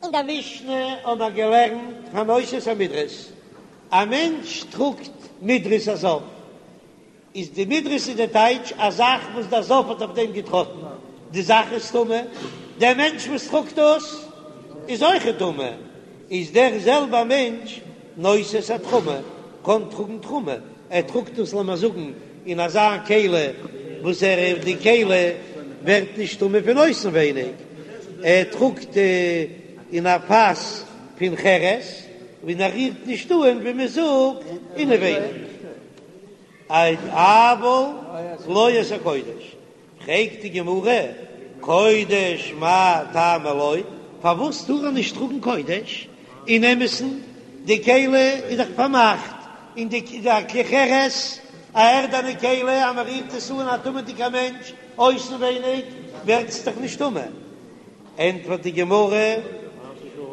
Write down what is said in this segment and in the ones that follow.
אין דער משנה האבן מיר געלערנט הנושא את המדרס, א מענטש טראגט מדרס א זב, איז די מדרס איז די טייטש א זאך וואס דער זב האט אויף דעם געטראטן, די זאך איז טמא, דער מענטש וואס טראגט דאס איז אויכעט טמא, איז דער זעלבער מענטש נושא את התרומה, קען טראגן תרומה, ער טראגט דאס לאמיר זאגן אין אזא כלי וואס ער די כלי ווערט נישט טמא פון אויסנווייניג, ער טראגט אין א פאס פון חרס און ער רירט נישט אן ווי מען זאגט אינעווייניג, אבל לא את הקודש. פרעגט די גמרא, קודש מאי טעמא לא, פארוואס טאר ער נישט טראגן קודש? אין אמת'ן, די כלי איז דאך פארמאכט, און די כלי חרס, א ערדענע כלי, אז מען רירט עס אן א טמא'דיגע מענטש אויסנווייניג, ווערט עס דאך נישט טמא. ענטפערט די גמרא,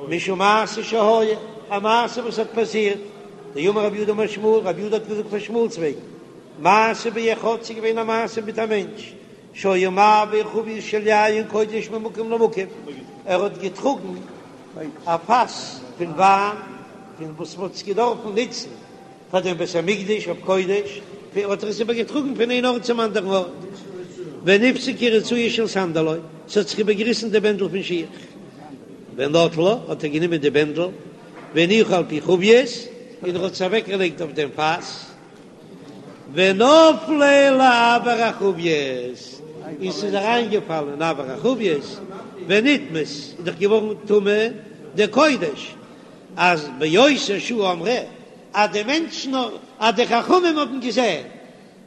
משום מעשה שהיה, א מעשה וואס האט פאסירט, דאמר רב יהודה אמר שמואל, רב יהודה האט געזאגט פון שמואל'ס וועגן, מעשה באחד, ס'איז געווען א מעשה מיט א מענטש, שהיה מעביר חבית של יין קודש ממקום למקום, ער האט געטראגן א פאס פון וויין, פון וואס מ'האט עס געדארפן נוצן פאר דעם בית המקדש אויף קודש, האט ער עס איבער געטראגן פון איין ארט צום אנדערן ארט, ונפסקה רצועה של סנדלו, ס'האט זיך איבערגעריסן די בענדל פון שיך, ונטלה, האט ער גענומען די בענדל, והניחה על פי חבית, און ער האט עס אוועקגעלייגט אויף דעם פאס. ונפלה לאויר החבית, און ס'איז אריינגעפאלן אין אויר החבית, ונטמאת, איז דאך געווארן טמא די קודש, אז באותה שעה אמרו, אז די מענטשן, אז די חכמים האבן געזען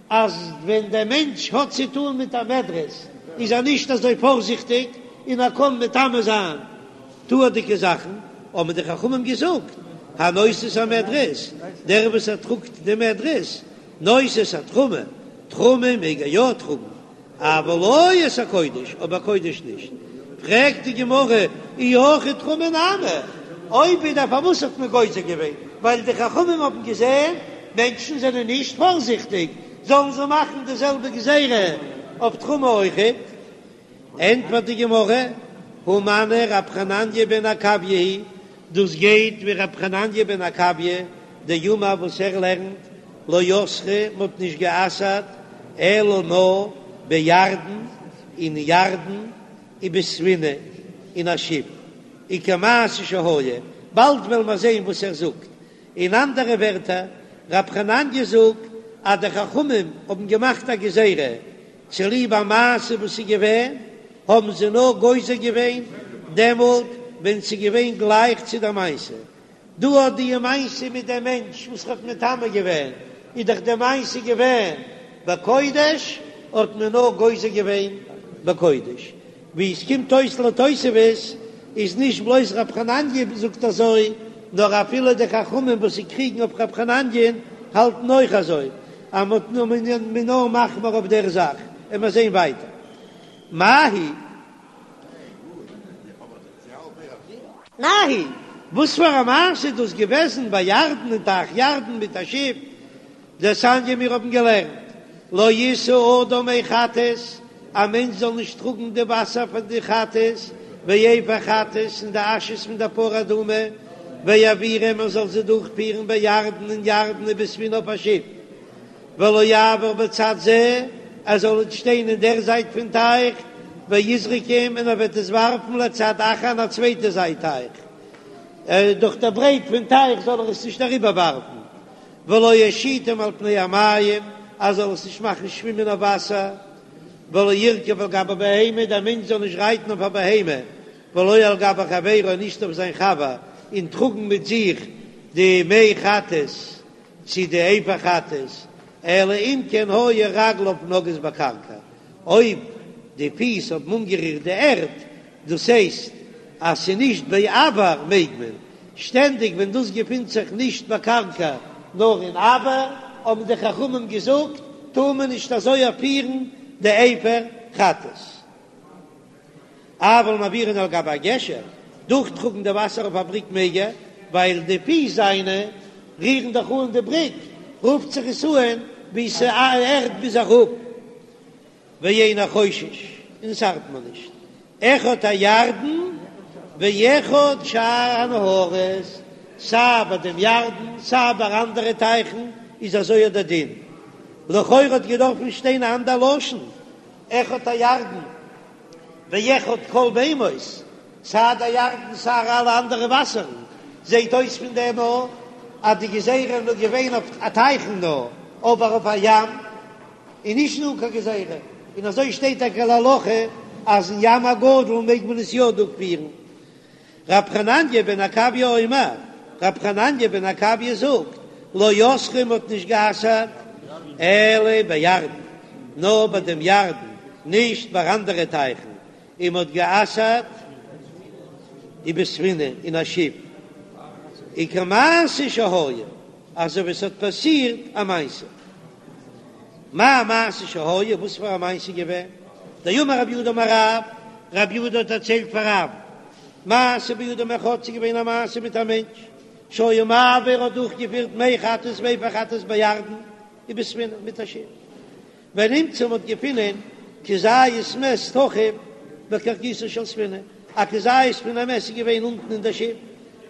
אז ווען דער מענטש האט צו טאן מיט א מדרס איז ער נישט אזוי פארזיכטיג און ער קען מטמא זיין טהור'דיגע זאכן, האבן די חכמים געזאגט, הנושא את המדרס, דער וואס ער טראגט די מדרס, נושא את התרומה, תרומה מעג ער יא טראגן, אבל לא את הקודש, אבער קודש נישט. פרעגט די גמרא, אי הכי תרומה נמי, אויב איז דער פארוואס האט מען גוזר געווען, ווייל די חכמים האבן געזען מענטשן זענען נישט פארזיכטיג, זאלן זיי מאכן די זעלבע גזירה אויף תרומה אויכעט. ענטפערט די גמרא, הא מני רב חנניה בן עקביה היא, דאס גייט ווי רב חנניה בן עקביה דאמר וואס ער לערנט, לא אסרו, מען האט נישט גע'אסר'ט אלא נאר בירדן, אין ירדן, ובספינה, אין א שיף, וכמעשה שהיה, באלד וועלן מיר זען וואס ער זאגט, אין אנדערע ווערטער, רב חנניה זאגט אז די חכמים האבן געמאכט א גזירה צוליב א מעשה וואס איז געווען, האבן זיי נאר גוזר געווען דעמאלט ווען ס'איז געווען גלייך צו דער מעשה. דא האט די מעשה מיט דעם מענטש וואס האט מטמא געווען, איז דאך די מעשה געווען בקודש, האט מען נאר גוזר געווען בקודש. ווי עס קומט אויס לתוספות איז נישט בלויז רב חנניה זאגט אזוי, נאר אפילו די חכמים וואס זיי קריגן אויף רב חנניה'ן האלטן אויך אזוי, אז מ'האט נאר מ'איז נאר מחמיר אויף דער זאך, און מיר זעהן ווייטער מאי היא. מאי היא, וואס פאר א מעשה איז דאס געוועזן בירדן אין טייך ירדן מיט א שיף? דתניא מיר האבן געלערנט, לא ישא אדם מי חטאת, א מענטש זאל נישט טראגן די וואסער פון די חטאת, ואפר חטאת און די אשעס פון די פרה אדומה, ויעבירם ער זאל זיי דורכפירן בירדן אין ירדן ובספינה אויף א שיף, ולא יעבור בצד זה, ער זאל נישט שטיין אין דער זייט פון טייך, ויזרקם און ער וועט עס ווארפן לצד אחר אין א צווייטע זייט טייך, דורך דער ברייט פון טייך זאל ער עס נישט אריבערווארפן. ולא ישיטם על פני המים, ער זאל עס נישט מאכן שווימען אויף וואסער, ולא ירכב על גבי בהמה, דער מענטש זאל נישט רייטן אויף א בהמה, ולא על גבי חברו, נישט אויף זיין חבר, און טראגן מיט זיך די מי חטאת צו די אפר חטאת, אלא אם כן היו רגליו נוגעות בקרקע, אויב די פיס האבן אנגערירט די ערד, דאס הייסט אז ס'איז נישט באויר מעג מען, שטענדיג ווען דאס געפינט זיך נישט בקרקע נאר אין אויר, האבן די חכמים געזאגט טאר מען נישט אזוי פירן די אפר חטאת. אבל מעבירן על גבי הגשר, דורכטראגן די וואסער אויף א בריק מעג ער, ווייל די פיס זיינע רירן דאך אן די בריק, רופט זיך עס אן ווי ס'ערד ביז אראפ. ואינו חושש, און עס ארט מיר נישט, אחד הירדן. ואחד שאר הנהרות, סיי ביי דעם ירדן סיי ביי אנדערע טייכן איז אזוי דער דין. לכאורה האט געדארפן שטיין א אנדער לשון, אחד הירדן ואחד כל מימות, סיי דער ירדן סיי אלע אנדערע וואסערן, זעט אויס פון דעם אויך אז די גזירה איז נאר געווען אויף א טייכן נאר, אבער אויף א ים איז נישט דא קיין גזירה, און אזוי שטייט טאקע להלכה אז אין ים הגדול מעג מען עס יא דורכפירן. רב חנניה בן עקביא אומר, רב חנניה בן עקביא זאגט, לא אסרו מ'האט נישט גע'אסר'ט אלא בירדן, נאר ביי דעם ירדן, נישט ביי אנדערע טייכן, און מ'האט גע'אסר'ט ובספינה אין א שיף, וכמעשה שהיה, אזוי ווי עס האט פאסירט א מעשה. מאי מעשה שהיה, וואס פאר א מעשה איז געווען? דאמר רב יהודה אמר רב, רב יהודה האט דערציילט פאר רב, מעשה באדם אחד, ס'איז געווען א מעשה מיט א מענטש, שהיה מעביר האט דורכגעפירט מי חטאת ואפר חטאת בירדן ובספינה מיט א שיף, ונמצא מ'האט געפינען כזית מת תחוב בקרקעיתה של ספינה, א כזית פון א מת איז געווען אונטן אין דער שיף,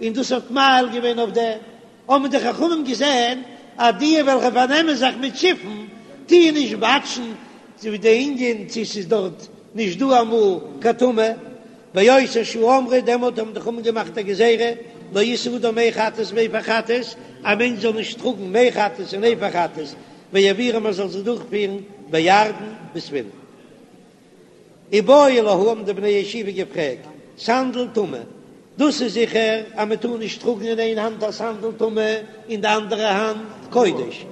און דאס האט מאהיל געווען אויף דעם, האבן די חכמים געזען אז די וועלכע פארנעמען זיך מיט שיפן טוען נישט וואטשן צו די ענין צו ס'איז דארט נישט דא אמאל קיין טומאה, באותה שעה אמרו, דעמאלט האבן די חכמים געמאכט א גזירה, לא ישא אדם מי חטאת ואפר חטאת, א מענטש זאל נישט טראגן מי חטאת און אפר חטאת, ויעבירם מען זאל זיי דורכפירן בירדן בספינה. איבעיא להו האבן די בני ישיבה געפרעגט, סנדל טמא, דאס איז זיכער אז מען טאר נישט טראגן אין איין האנט א סנדל טמא אין די אנדערע האנט קודש,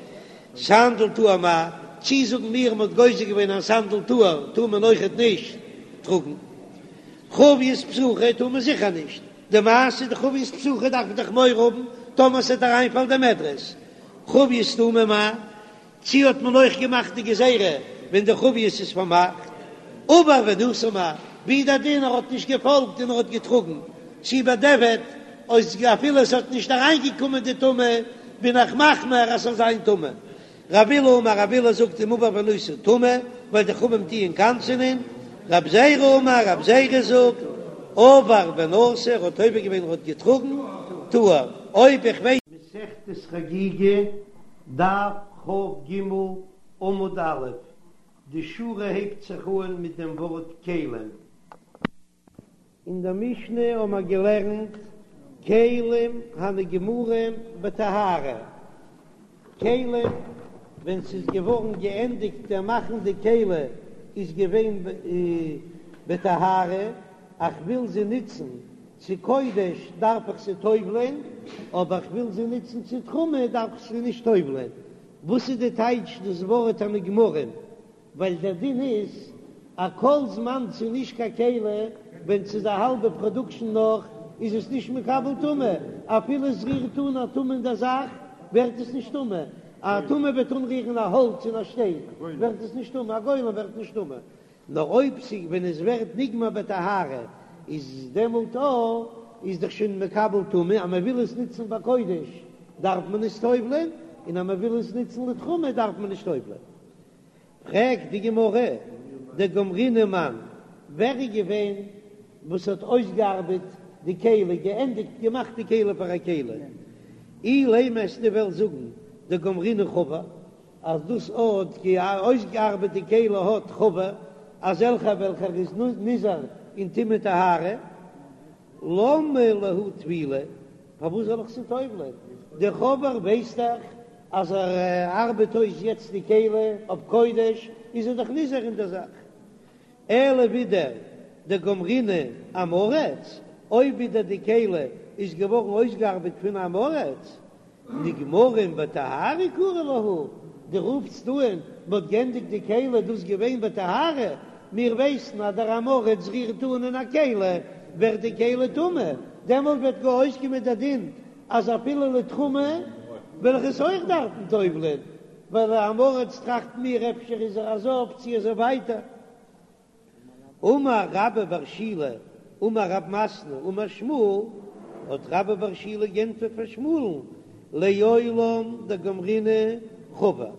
סנדל טהור מהו, צי זאגן מיר מען האט גוזר געווען אז סנדל טהור טאר מען אויכעט נישט טראגן, חבית פתוחה טאר מען זיכער נישט, די מעשה די חבית פתוחה דארף מען דאך מורא האבן טאמער ס'וועט אריינפאלן די מדרס, חבית סתומה מהו, צי האט מען אויך געמאכט די גזירה ווען די חבית איז פארמאכט? עבר ונשא מהו, ווי דער דין ער האט נישט געפאלגט און ער האט געטראגן, צי בדיעבד אויס אפילו עס האט נישט אריינגעקומען די טומאה בין איך מחמיר אז ס'זאל זיין טמא. רב אילא אמר רב אילא זאגט אם עבר ונשא טמא ווייל די חכמים טוען קנס'ענען, רב זירא אמר רב זירא זאגט עבר ונשא ער האט עובר געווען ער האט געטראגן טהור אויב איך ווייס. מסכת חגיגה, דף כ"ג עמוד א', די שורה הייבט זיך אן מיט דעם ווארט כלים. אין דער משנה האבן מיר געלערנט כלים הנגמרים בטהרה, כלים ווען ס'איז געווארן געענדיגט דער מאכן די כלי איז געווען בטהרה, איך וויל זי נוצן צו קודש דארף איך זי טובל'ען, אבער איך וויל זי נוצן צו תרומה דארף איך זי נישט טובל'ען. וואס איז די טייטש דאס ווארט הנגמרים? ווייל דער דין איז אז כל זמן ס'איז נישט קיין כלי, ווען ס'איז א האלבע פראדוקשן נאך, איז עס נישט מקבל טומאה, אפילו עס רירט אן א טומאה אין דער זאך, ווערט עס נישט טמא, א טומאה וועט אנרירן א האלץ און א שטיין, ווערט עס נישט טמא, א גולם ווערט נישט טמא. נאר אויב ס'איז ווען עס ווערט נגמר בטהרה איז דעמאלט א איז דאך שוין מקבל טומאה, אז מען וויל עס נוצן בקודש דארף מען עס טובל'ען, און אז מען וויל עס נוצן לתרומה דארף מען נישט טובל'ען. פרעגט די גמרא, דגמרינהו מאן, ווער איז געווען וואס האט אויסגעארבעט די כלי, געענדיגט געמאכט די כלי פאר א כלי? אילימא וועסטו וועלן זאגן דגמרינהו חבר, אז דאס האט אויסגעארבעט די כלי האט חבר, אזעלכער וועלכער איז נזהר אין טומאה טהרה, למה להו טבילה, פארוואס זאל איך זי טובל'ען? דער חבר ווייסט דאך אז ער ארבעט אויס יעצט די כלי אויף קודש, איז ער דאך נזהר אין דער זאך. אלא ווידער דגמרינהו עם הארץ, אויב ווידער די כלי איז געווארן אויסגעארבעט פון עם הארץ, נגמרים בטהרה קרי להו, דו רופסט אן מ'האט גענדיגט די כלי דאס געווען בטהרה, מיר ווייסן אז דער עם הארץ רירט אן אין א כלי ווערט די כלי טמא, דעמאלט וועט גאר אויסקומען דער דין אז אפילו לתרומה וועל איך עס אויך דארפן טובל'ען, ווייל עם הארץ טראכט מיר אפשר איז ער א זב צי אזוי ווייטער. אמר רבה בר שילא אמר רב מתנה אמר שמואל, האט רבה בר שילא גענטפערט פאר שמואל'ן, לעולם דגמרינהו חבר,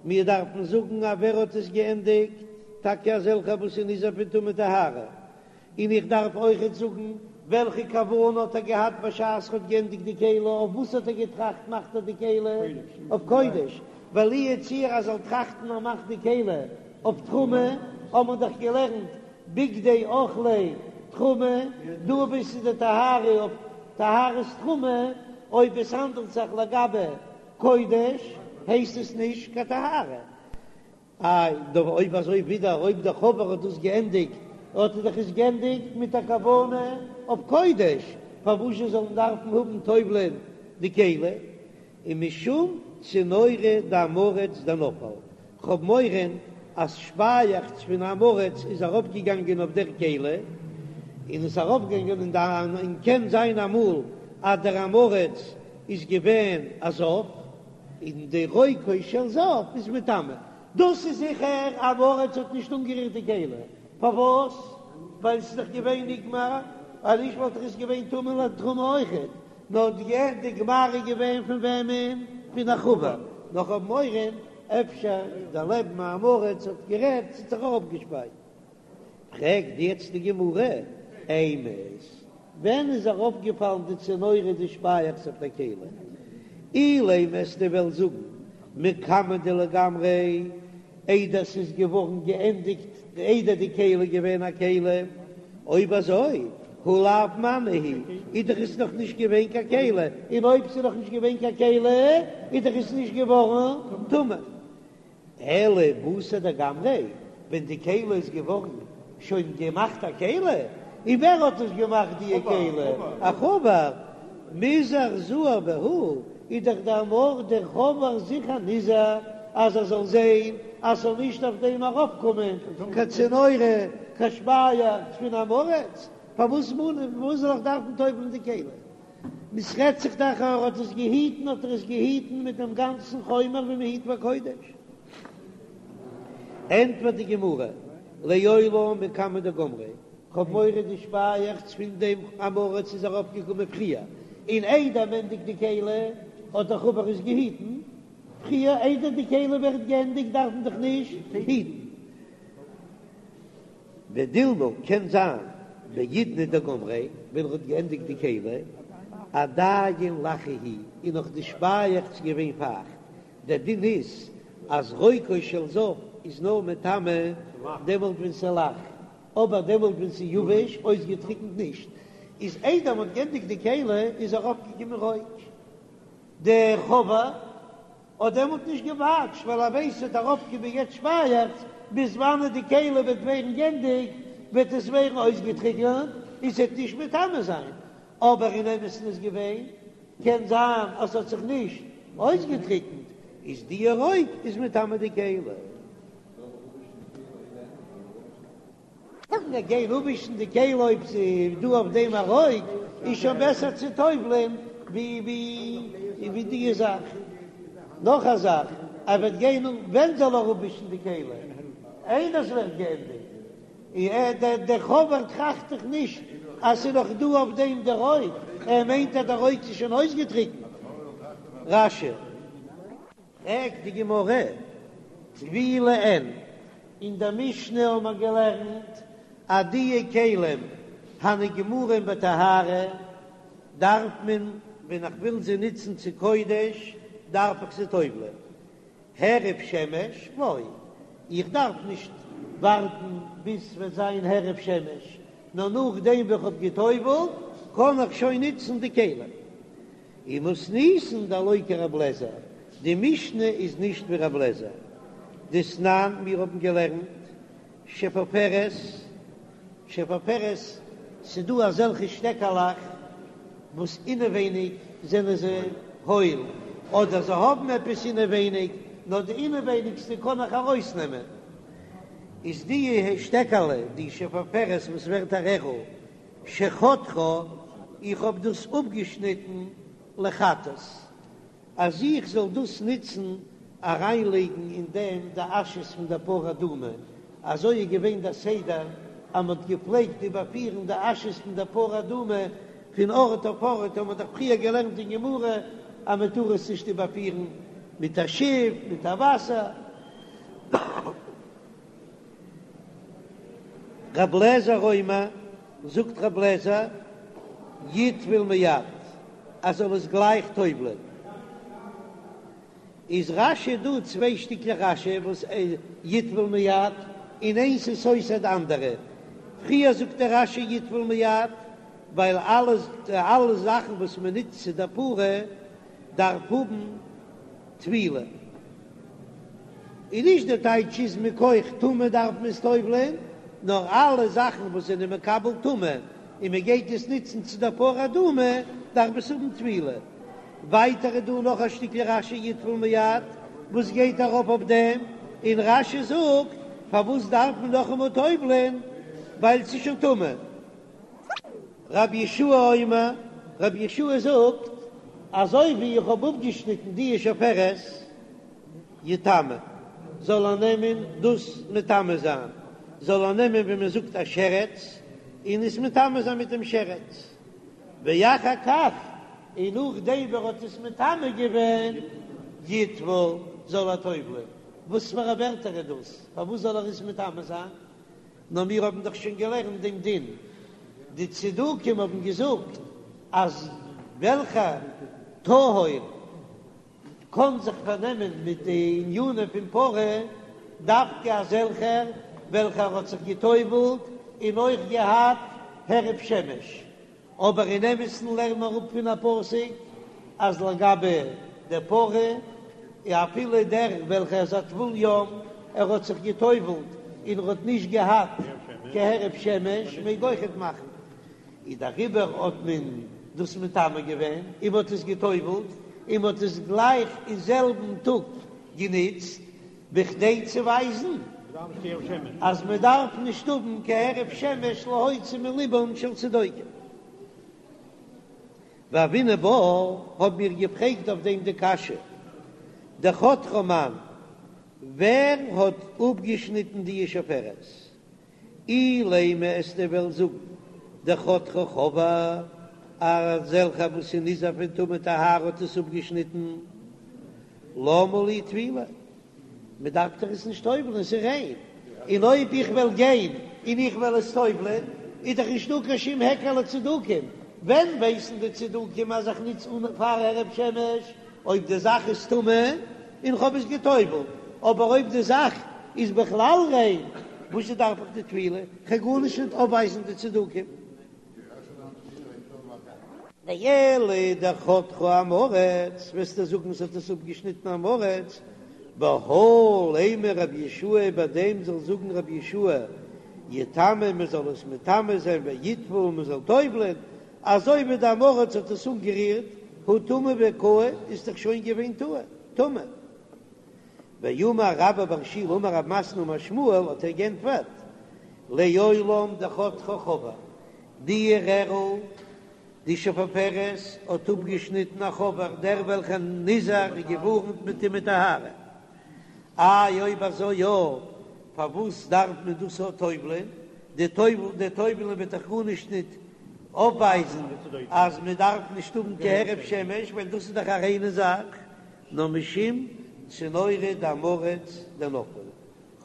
מיר דארפן זאגן אז ווער האט עס געענדיגט, טאקע אזעלכע וואס איז נזהר פון טומאה טהרה, און איך דארף אויכעט זאגן. וועלכע כוונה האט ער געהאט בשעת ער האט געענדיגט די כלי, אויף וואס האט ער געטראכט מאכט ער די כלי? אויף קודש, ווייל לו יצוייר ער זאל טראכטן ער מאכט די כלי אויף תרומה, האט מען דאך געלערנט בגדי אוכלי תרומה, דא וואו ס'איז די טהרה אויף טהרת תרומה, אויב עס האנדלט זיך לגבי קודש הייסט עס נישט קיין טהרה. איי, דא אויב אזוי ווידער אויב דער חבר האט דאס געענדיגט, האט ער דאך עס געענדיגט מיט א כוונה אויף קודש, פארוואזשע זאל מען דארפן האבן טובל'ען די כלי? ומשום צינורא דעם הארץ דנפל, כ'האב מורא אז שפייעכץ פון עם הארץ איז ארויפגעגאנגען אויף דער כלי, און איז ארויפגעגאנגען אין די, און קען זיין אמאל אז דער עם הארץ איז געווען א זב, און די רוקו של זב איז מטמא. דאס איז זיכער עם הארץ האט נישט אנגערירט די כלי, פארוואס? ווייל ס'איז דאך געווען נגמר, אז נישט וואלט דאך עס געווען טמא לתרומה אויכעט, נאר די גמר איז געווען פון וועמען? פון א חבר, נאר כ'האב מורא אפשר דער לעבן עם הארץ האט גערעדט ס'האט זיך אראפגעשפייט. פרעגט יעצט די גמרא, אימת, ווען איז אראפגעפאלן די צינורא די שפייעכץ אויף דער כלי? אילימא וועסטו וועלן זאגן מקמי דלגמריה, איידער ס'איז געווארן געענדיגט, איידער די כלי איז געווען א כלי, אויב אזוי הא לאו מנא הוא, איז דאך עס נאך נישט געווען קיין כלי, און אויב ס'איז נאך נישט געווען קיין כלי איז דאך עס נישט געווארן טמא. אלא בתר דגמריה, ווען די כלי איז געווארן שוין געמאכט א כלי, און ווער האט עס געמאכט די כלי? א חבר, מיזהר זהיר בהו, איז דאך דער מאר דער חבר זיכער נזהר אז ער זאל זען אז ס'זאל נישט אויף דעם ארויפקומען קיין צינורא, קיין שפייעכץ פון עם הארץ, פארוואס זאל איך דארפן טובל'ן די כלי? ס'רעדט זיך דאך ער האט עס געהיטן האט ער עס געהיטן מיט דעם גאנצן חומר ווי מען היט ביי קודש. ענטפערט די גמרא, לעולם מקמי דגמריה, כ'האב מורא די שפייעכץ פון דעם עם הארץ איז ארויף געקומען פריער, און איידער מ'ענדיגט די כלי האט דער חבר עס געהיטן פריער, איידער די כלי ווערט געענדיגט דארף מען דאך נישט היטן. ודילמא קען זיין בעידנא דגמריה ווען ער האט געענדיגט די כלי עדיין לחה היא איז נאך די שפייעכץ געווען פייכט, דער דין איז אז רוקו של זב איז נאר מטמא דעמאלט ווען ס'איז לח, אבער דעמאלט ווען ס'איז יבש אויסגעטריקנט נישט, איז איידער מ'האט געענדיגט די כלי איז ארויפגעקומען רוק דער חבר. האט דעמאלט נישט געוואטשט ווייל ער ווייסט ס'וועט ארויפקומען יעצט שפייעכץ, ביז וואנעט די כלי וועט ווערן גענדיגט וועט עס ווערן אויסגעטריקענט און ס'וועט נישט מטמא זיין, אבער אין אמת'ן איז געווען, קען זיין אז ס'האט זיך נישט אויסגעטריקענט, איז די רוק איז מטמא די כלי. מיר גיין אפווישן די כלי אויב ס'איז דא אויף דעם א רוק, איז שוין בעסער צו טובל'ען ווי ווי די זאך. נאך א זאך, ער וועט גיין ווען זאל ער אפווישן די כלי? איידער ס'ווערט געענדיגט. און דער חבר טראכט דאך נישט אז ס'איז נאך דא אויף דעם די רוק, ער מיינט אז די רוק איז שוין אויסגעטריקנט. רש"י. פרעגט די גמרא, טבילה אין, אין דער משנה האבן מיר געלערנט אז די כלים הנגמרים בטהרה דארף מען ווען איך וויל זיי נוצן צו קודש דארף איך זיי טובל'ען, הערב שמש לא, איך דארף נישט ווארטן ביז ס'וועט זיין הערב שמש, נאר נאכדעם ווי איך האב געטובל'ט קען איך שוין נוצן די כלים. ומתניתין דלא כרבי אליעזר, די משנה איז נישט ווי רבי אליעזר, דתנן מיר האבן געלערנט שפופרת, שפופרת, ס'דא אזעלכע שטעקעלעך וואס אינעווייניג זענען זיי הויל, אדער זיי האבן עפעס אינעווייניג, נאר די אינעווייניגסטע קען איך ארויסנעמען, איז די שטעקעלע, די שפופרת וואס ווערט א רערל, שחתכה, איך האב דאס אפגעשניטן לחטאת, אז איך זאל דאס נוצן אריינלייגן אין דעם די אשעס פון דער פרה אדומה, אזוי איז געווען דער סדר אז מען האט געפלעגט איבערפירן די אשעס פון דער פרה אדומה פון ארט אויף ארט, האט מען דאך פריער געלערנט אין גמרא אז מען טאר עס נישט איבערפירן מיט א שיף, מיט א וואסער. רב לעזער אומר, זאגט רב לעזער. יטבול מיד, ער זאל עס גלייך טובל'ען. איז רש"י דא צוויי שטיקלעך רש"י וואס יטבול מיד און איינס איז סותר די אנדערע, פריער זאגט דער רש"י יטבול מיד ווייל אלע אלע זאכן וואס מען נוצט צו דער פרה דארף האבן טבילה, און נישט די טייטש איז מכח טומאה דארף מען עס טובל'ען, נאר אלע זאכן וואס זענען מקבל טומאה און מען גייט עס נוצן צו דער פרה אדומה דארף עס האבן טבילה. ווייטער איז דא נאך א שטיקל רש"י יטבול מיד וואס גייט ארויף אויף דעם, און רש"י זאגט פארוואס דארף מען נאכאמאל טובל'ען ווייל ס'איז שוין טמא. רבי יהושע אומר, רבי יהושע זאגט, אזוי ווי איך האב אפגעשניטן די שפופרת, יטמא, זאל ער נעמען דאס מטמא זיין, זאל ער נעמען ווי מען זאגט א שרץ, און עס מטמא זיין מיט דעם שרץ, ואחר כך, און נאכדעם ווי ער האט עס מטמא געווען, יטבול, זאל ער טובל'ען. וואס פאר א ווערטער איז דאס? פארוואס זאל ער עס מטמא זיין? נאר מיר האבן דאך שוין געלערנט דעם דין, די צדוקים האבן געזאגט אז וועלכע טהור קען זיך פארנעמען מיט די ענינים פון פרה, דווקא אזעלכער וועלכער האט זיך גע'טובל'ט און אויך געהאט הערב שמש, אבער אין אמת'ן לערנט מען אראפ פון א פסוק אז לגבי די פרה, אפילו דער וועלכער איז א טבול יום, ער האט זיך גע'טובל'ט און ער האט נישט געהאט קיין הערב שמש, מעג אויכעט מאכן. איז דעריבער האט מען דאס מטמא געווען און מען האט עס גע'טובל'ט און מען האט עס גלייך אין זעלבן טאג גענוצט, בכדי צו ווייזן אז מען דארף נישט האבן קיין הערב שמש להוציא מלבן של צדוקים. והוינן בה, האבן מיר געפרעגט אויף דעם די קשיא, דחתכה מאן, ווער האט אפגעשניטן די שפופרת? אילימא וועסטו וועלן זאגן דחתכה חבר, אזעלכע וואס איז נזהר פון טומאה וטהרה האט עס אפגעשניטן, למה לי טבילה? מען דארף דאך עס נישט טובל'ן, עס איז ריין, און אויב איך וועל גיין און איך וועל עס טובל'ען איז דאך נישטא קיין שום היכר לצדוקים, ווען ווייסן די צדוקים אז איך נוץ אן פאר הערב שמש? אויב די זאך איז טמא און כ'האב עס גע'טובל'ט, אבער אויב די זאך איז בכלל ריין, וואזשע דארף איך די טבילה? כ'קען גארנישט נישט אויפווייזן די צדוקים. ואלא דחתכה עם הארץ, וועסטו זאגן ס'האט עס אפגעשניטן עם הארץ, בהא לימא רבי יהושע ביי דעם זאל זאגן רבי יהושע יטמא מ'זאל עס מטמא זיין ויטבול מ'זאל טובל'ען, אזוי ווי די עם הארץ האט עס אנגערירט, הא טמא וקאי איז דאך שוין געווען טמא. ואמר רבה בר שילא אמר רב מתנה אמר שמואל האט ער גענטפערט, לעולם דחתכה חבר, די רערל די שפופרת האט אפגעשניטן א חבר דער וועלכער נזהר איז געווארנט מיט טומאה וטהרה. איי אויב אזוי יא, פארוואס דארף מען דאס אויך טובל'ען? די טובל די טובל'ען וועט דאך גארנישט ניט אויפווייזן אז מען דארף נישט האבן קיין הערב שמש, ווייל דאס איז דאך א ריינע זאך, נאר משום צינורא דעם הארץ דנפל,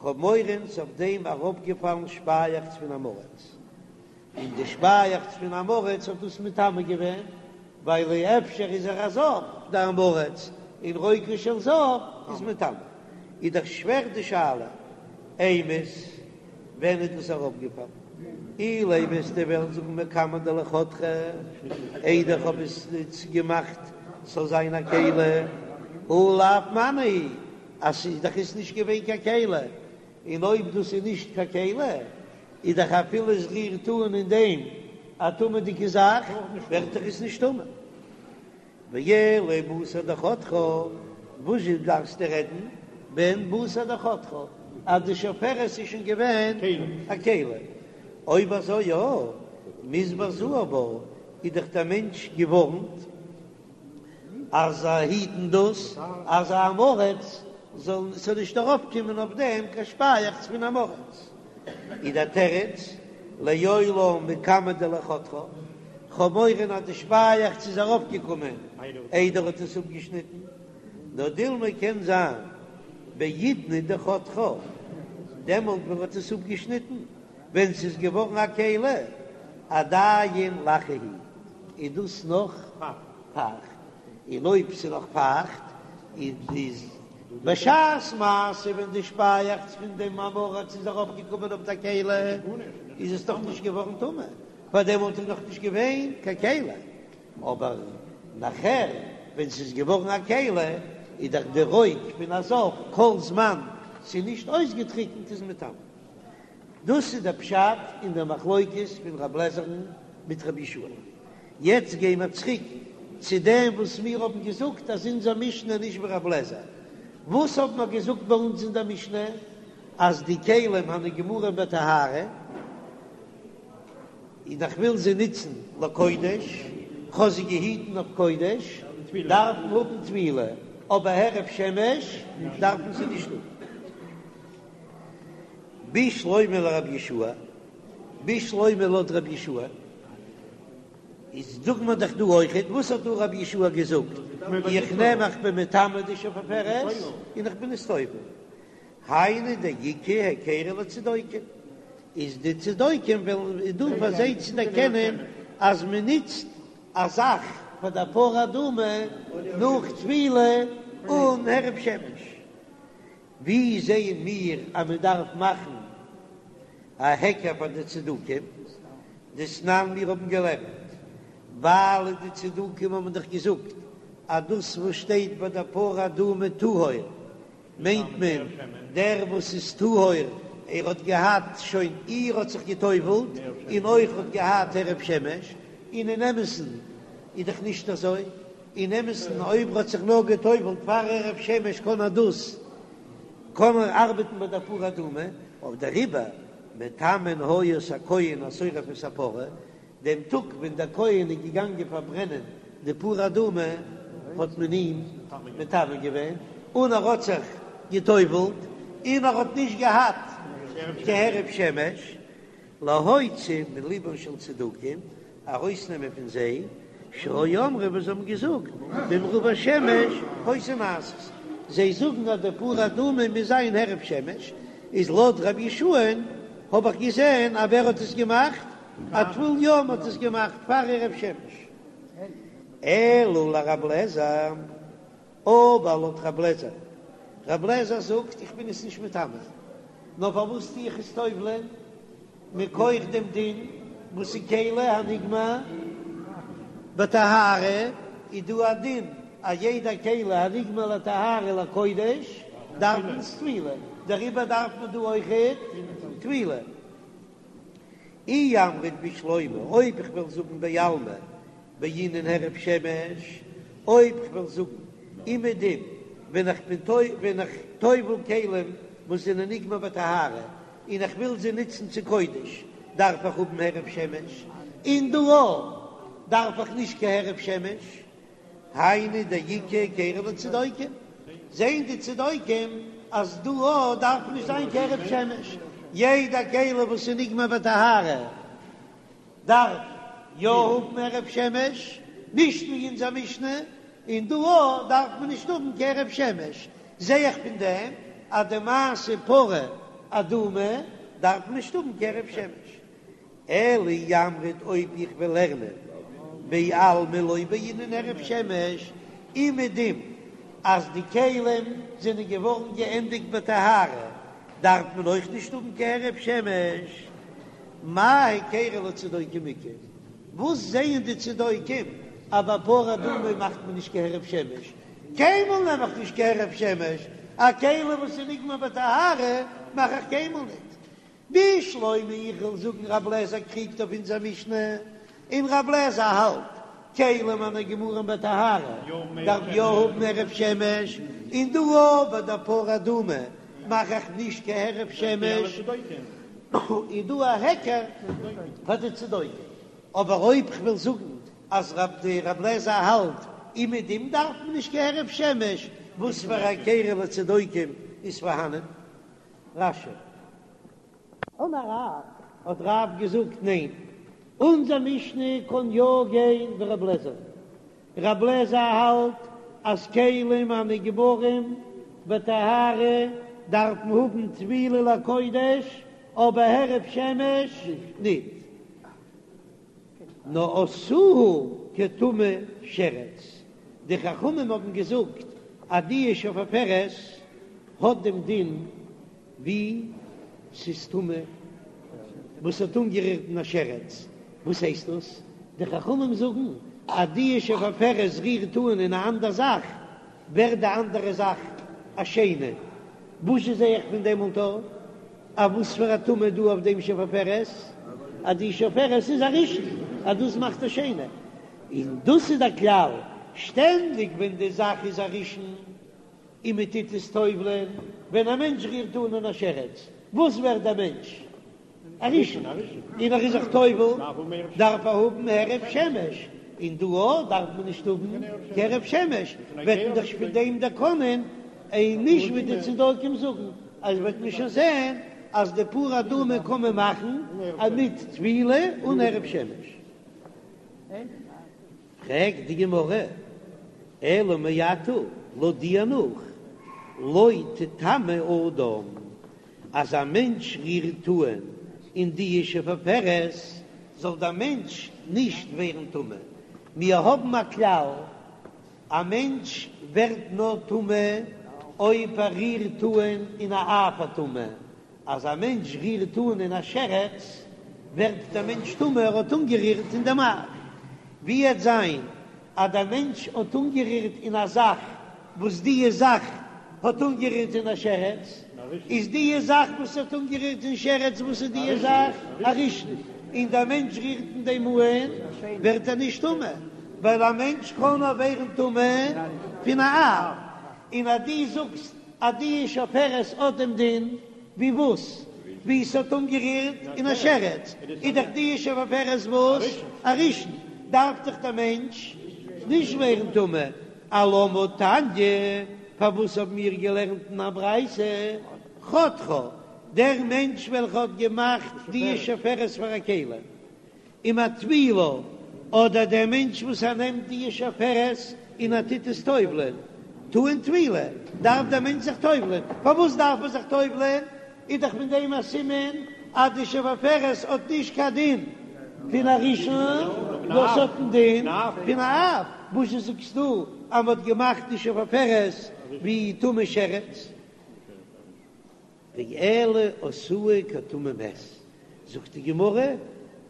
כ'האב מורא ס'איז אויף דעם אראפגעפאלן שפייעכץ פון עם הארץ. און די שפייעכץ פון עם הארץ האט דאס מטמא געווען, ווייל אפשר איז ער א זב דער עם הארץ, און רוקו של זב איז מטמא. איז דאך שווער די שאלה, אימת ווען איז דאס אראפגעפאלן? אילימא וועסטו וועלן זאגן מקמי דלא חתכה, איידער איך האב עס געמאכט ס'זאל זיין א כלי, הא לאו מנא הוא, אז ס'איז דאך עס נישט געווען קיין כלי, און אויב דאס איז נישט קיין כלי, איז דאך אפילו עס רירט אן אין דעם א טמא'דיגע זאך, ווערט דאך עס נישט טמא. ואלא בתר דחתכה, וואס זשע דארפסטו רעדן ווען בתר דחתכה, אז די שפופרת איז שוין געווען א כלי? אויב אזוי יא, מיזהר זהיר בה, איז דאך דער מענטש געווארנט אז היטן דאס אז א עם הארץ זאל ס'זאל נישט ארויפקומען אויף דעם קיין שפייעכץ פון עם הארץ, איז דער תירוץ לעולם מקמי דלא חתכה, כ'האב מורא אז די שפייעכץ איז ארויפגעקומען איידער האט עס אפגעשניטן, נאר דילמא קען זיין בעידנא דחתכה, דעמאלט ווען מ'האט עס אפגעשניטן ווען ס'איז געווארן א כלי, עדיין לחה היא. איז דאס נאך פייכט, און אויב ס'איז נאך פייכט איז בשעת מעשה ווען די שפייעכץ פון דעם עם הארץ איז ארויפגעקומען אויף די כלי איז עס דאך נישט געווארן טמא, ווייל דעמאלט איז נאך נישט געווען קיין כלי, אבער נאכער ווען ס'איז געווארן א כלי איז דאך די רוק פון א זב כל זמן ס'איז נישט אויסגעטריקנט איז מטמא. דאס איז דער פשט אין דער מחלוקת פון רב לעזער'ן מיט רבי יהושע. יעצט גייען מיר צוריק צו דעם וואס מיר האבן געזאגט אז אונזער משנה איז נישט ווי רב לעזער. וואס האבן מיר געזאגט ביי אונז אין דער משנה? אז די כלים הנגמרים בטהרה, און איך וויל זיי נוצן לקודש, כ'האב זיי געהיטן אויף קודש, דארפן האבן טבילה, אבער הערב שמש דארפן זיי נישט האבן. בשלמא לרבי יהושע, בשלמא לויט רבי יהושע, איז זאגט מען דאך דא אויכעט, וואס האט דא רבי יהושע געזאגט, איך נעם איך בין מטמא די שפופרת און איך בין עס טובל, היינו דאיכא היכרא לצדוקים, איז די צדוקים וועלן איז דא פאר זיי צו דערקענען אז מען נוצט א זאך פאר די פרה אדומה נאך טבילה אן הערב שמש. ווי זעען מיר אז מען דארף מאכן א היכר פאר די צדוקים? דתנן מיר האבן געלערנט, ווייל די צדוקים האבן דאך געזאגט אז דאס וואס שטייט ביי די פרה אדומה טהור מיינט מען דער וואס איז טהור, ער האט געהאט שוין איר האט זיך גע'טובל'ט און אויך האט געהאט הערב שמש, און אין אמת'ן איז דאך נישט אזוי. אין אמת'ן אויב ער האט זיך נאר גע'טובל'ט פאר הערב שמש קען ער דאס קען ער ארבעטן ביי דער פרה אדומה, אויף דעריבער מטמאין היו את הכהן השורף את הפרה, דעם טאג ווען דער כהן איז געגאנגען פארברענען די פרה אדומה האט מען אים מטמא געווען, און ער האט זיך גע'טובל'ט און ער האט נישט געהאט קיין הערב שמש, להוציא מלבן של צדוקים, ארויסנעמען פון זיי, שהיו אומרים וואס זיי האבן געזאגט, במעורבי שמש היתה נעשית, זיי זאגן אז די פרה אדומה מוז זיין הערב שמש, איז לויט רבי יהושע'ן האב איך געזען אז ווער האט עס געמאכט? א טבול יום האט עס געמאכט פאר הערב שמש. אלא לרב לעזער. אבער לויט רב לעזער, רב לעזער זאגט איך בין עס נישט מטמא, נאר פארוואס טו איך עס טובל'ען? מכח דעם דין וואס איז כלי הנגמר בטהרה, איז דא א דין אז יעדע כלי הנגמר לטהרה לקודש דארף מען עס טבילה, דעריבער דארף מען דא אויכעט טבילה. אי אמרת בשלמא, אויב איך וועל זאגן בעלמא בעינן הערב שמש, אויב כ'וועל זאגן אומעדום ווען איך בין ווען איך טובל כלים וואס זענען נגמר בטהרה און איך וויל זיי נוצן צו קודש דארף איך האבן הערב שמש, און דא דארף איך נישט קיין הערב שמש, היינו דאיכא היכרא לצדוקים, זעהן די צדוקים אז דא דארף נישט זיין קיין הערב שמש, יעדע כלי וואס איז נגמר בטהרה. דארף יא האבן הערב שמש, נישט ווי אונזער משנה, און דא אויך דארף מען נישט האבן קיין הערב שמש, זע איך פון דעם אז די מעשה פרה אדומה דארף מען נישט האבן קיין הערב שמש. אלא אי אמרת אויב איך וועל לערנען בעלמא לא בעינן הערב שמש, אומעדום אז די כלים זענען געווארן געענדיגט בטהרה דארף מען אויך נישט האבן קיין הערב שמש. מאי היכרא לצדוקים איכא? וואס זעען די צדוקים אז ביי פרה אדומה מאכט מען נישט קיין הערב שמש? קיינמאל נעם איך נישט קיין הערב שמש, א כלי וואס איז נגמר בטהרה מאך איך קיינמאל ניט. בשלמא איך וויל זאגן רב לעזער קריגט אויף אונזער משנה, און רב לעזער האלט כלים הנגמרים בטהרה דארף יא האבן הערב שמש, און דא אויך ביי די פרה אדומה מאך איך נישט קיין הערב שמש, איז דא א היכר פאר די צדוקים, אבער אויב כ'וויל זאגן אז רב די רב לעזער האלט אומעדום דארף מען נישט קיין הערב שמש, וואס פאר א היכרא לצדוקים איז פארהאנען? רש"י. אמר רב, האט רב געזאגט, ניין, אונזער משנה קען יא גיין ווי רב לעזער, רב לעזער האלט אז כלים הנגמרים בטהרה דארפן האבן טבילה לקודש, אבער הערב שמש ניט. נאר עשאוהו. כטמא שרץ, די חכמים האבן געזאגט אז די שפופרת האט דעם דין ווי ס'איז טמא וואס האט אנגערירט אין א שרץ, וואס הייסט דאס? די חכמים זאגן אז די שפופרת רירט אן אין א אנדער זאך ווערט די אנדערע זאך א שני, וואס זשע זע איך פון דעם אונטער א וואס פאר א טומאה דא אויף דעם שפופרת? אז די שפופרת איז א ראשון אז דאס מאכט א שני, און דאס איז דער כלל שטענדיג ווען די זאך איז א ראשון און מען טוט עס טובל'ען, ווען א מענטש רירט אן אין א שרץ, וואס ווערט דער מענטש? א ראשון, און ער איז זיך טובל, דארף ער האבן הערב שמש, און דא אויך דארף מען נישט האבן קיין הערב שמש, וועט מען דאך פון דעם דערקענען, און נישט ווי די צדוקים זאגן, אז וועט מען שוין זען אז די פרה אדומה קען מען מאכן מיט טבילה אן הערב שמש. פרעגט די גמרא, אלא מעתה, לויט דיר נאך, לא תטמא אדם, אז א מענטש רירט אן אין די שפופרת, זאל דער מענטש נישט ווערן טמא. מיר האבן א כלל, א מענטש ווערט נאר טמא אויב ער רירט אן אין א אב הטומאה, אז א מענטש רירט אן אין א שרץ, ווערט דער מענטש טמא, ער האט אנגערירט אין דעם אב. ווי עט זיין אז דער מענטש האט אנגערירט אין א זאך וואס דיע זאך האט אנגערירט אין א שרץ, איז דיע זאך וואס האט אנגערירט אין שרץ, וואס איז דיע זאך? א ראשון, און דער מענטש רירט אין דעם אן, ווערט ער נישט טמא, ווייל א מענטש קען נאר ווערן טמא פון א אב, און אז דו זאגסט אז די שפופרת האט דעם דין ווי וואס? ווי ס'האט אנגערירט אין א שרץ, איז דאך די שפופרת וואס? א ראשון, דארף דאך דער מענטש נישט ווערן טמא, אלמה תניא, פארוואס האבן מיר געלערנט אין א ברייתא חותכה, דער מענטש וועלכע האט געמאכט די שפופרת פאר א כלי, ומטבילה, אדער דער מענטש וואס ער נעמט די שפופרת און ער טוט עס טובל'ען, טעון טבילה, דארף דער מענטש זיך טובל'ען, פארוואס דארף ער זיך טובל'ען? איז דאך פון דעם א סימן אז די שפופרת האט נישט קיין דין פון א ראשון, נאר ס'האט דעם דין פון א אב, וואזשע זאגסטו אז מ'האט געמאכט די שפופרת ווי טמא שרץ? ואלא עשאוה כטמא מת, זאגט די גמרא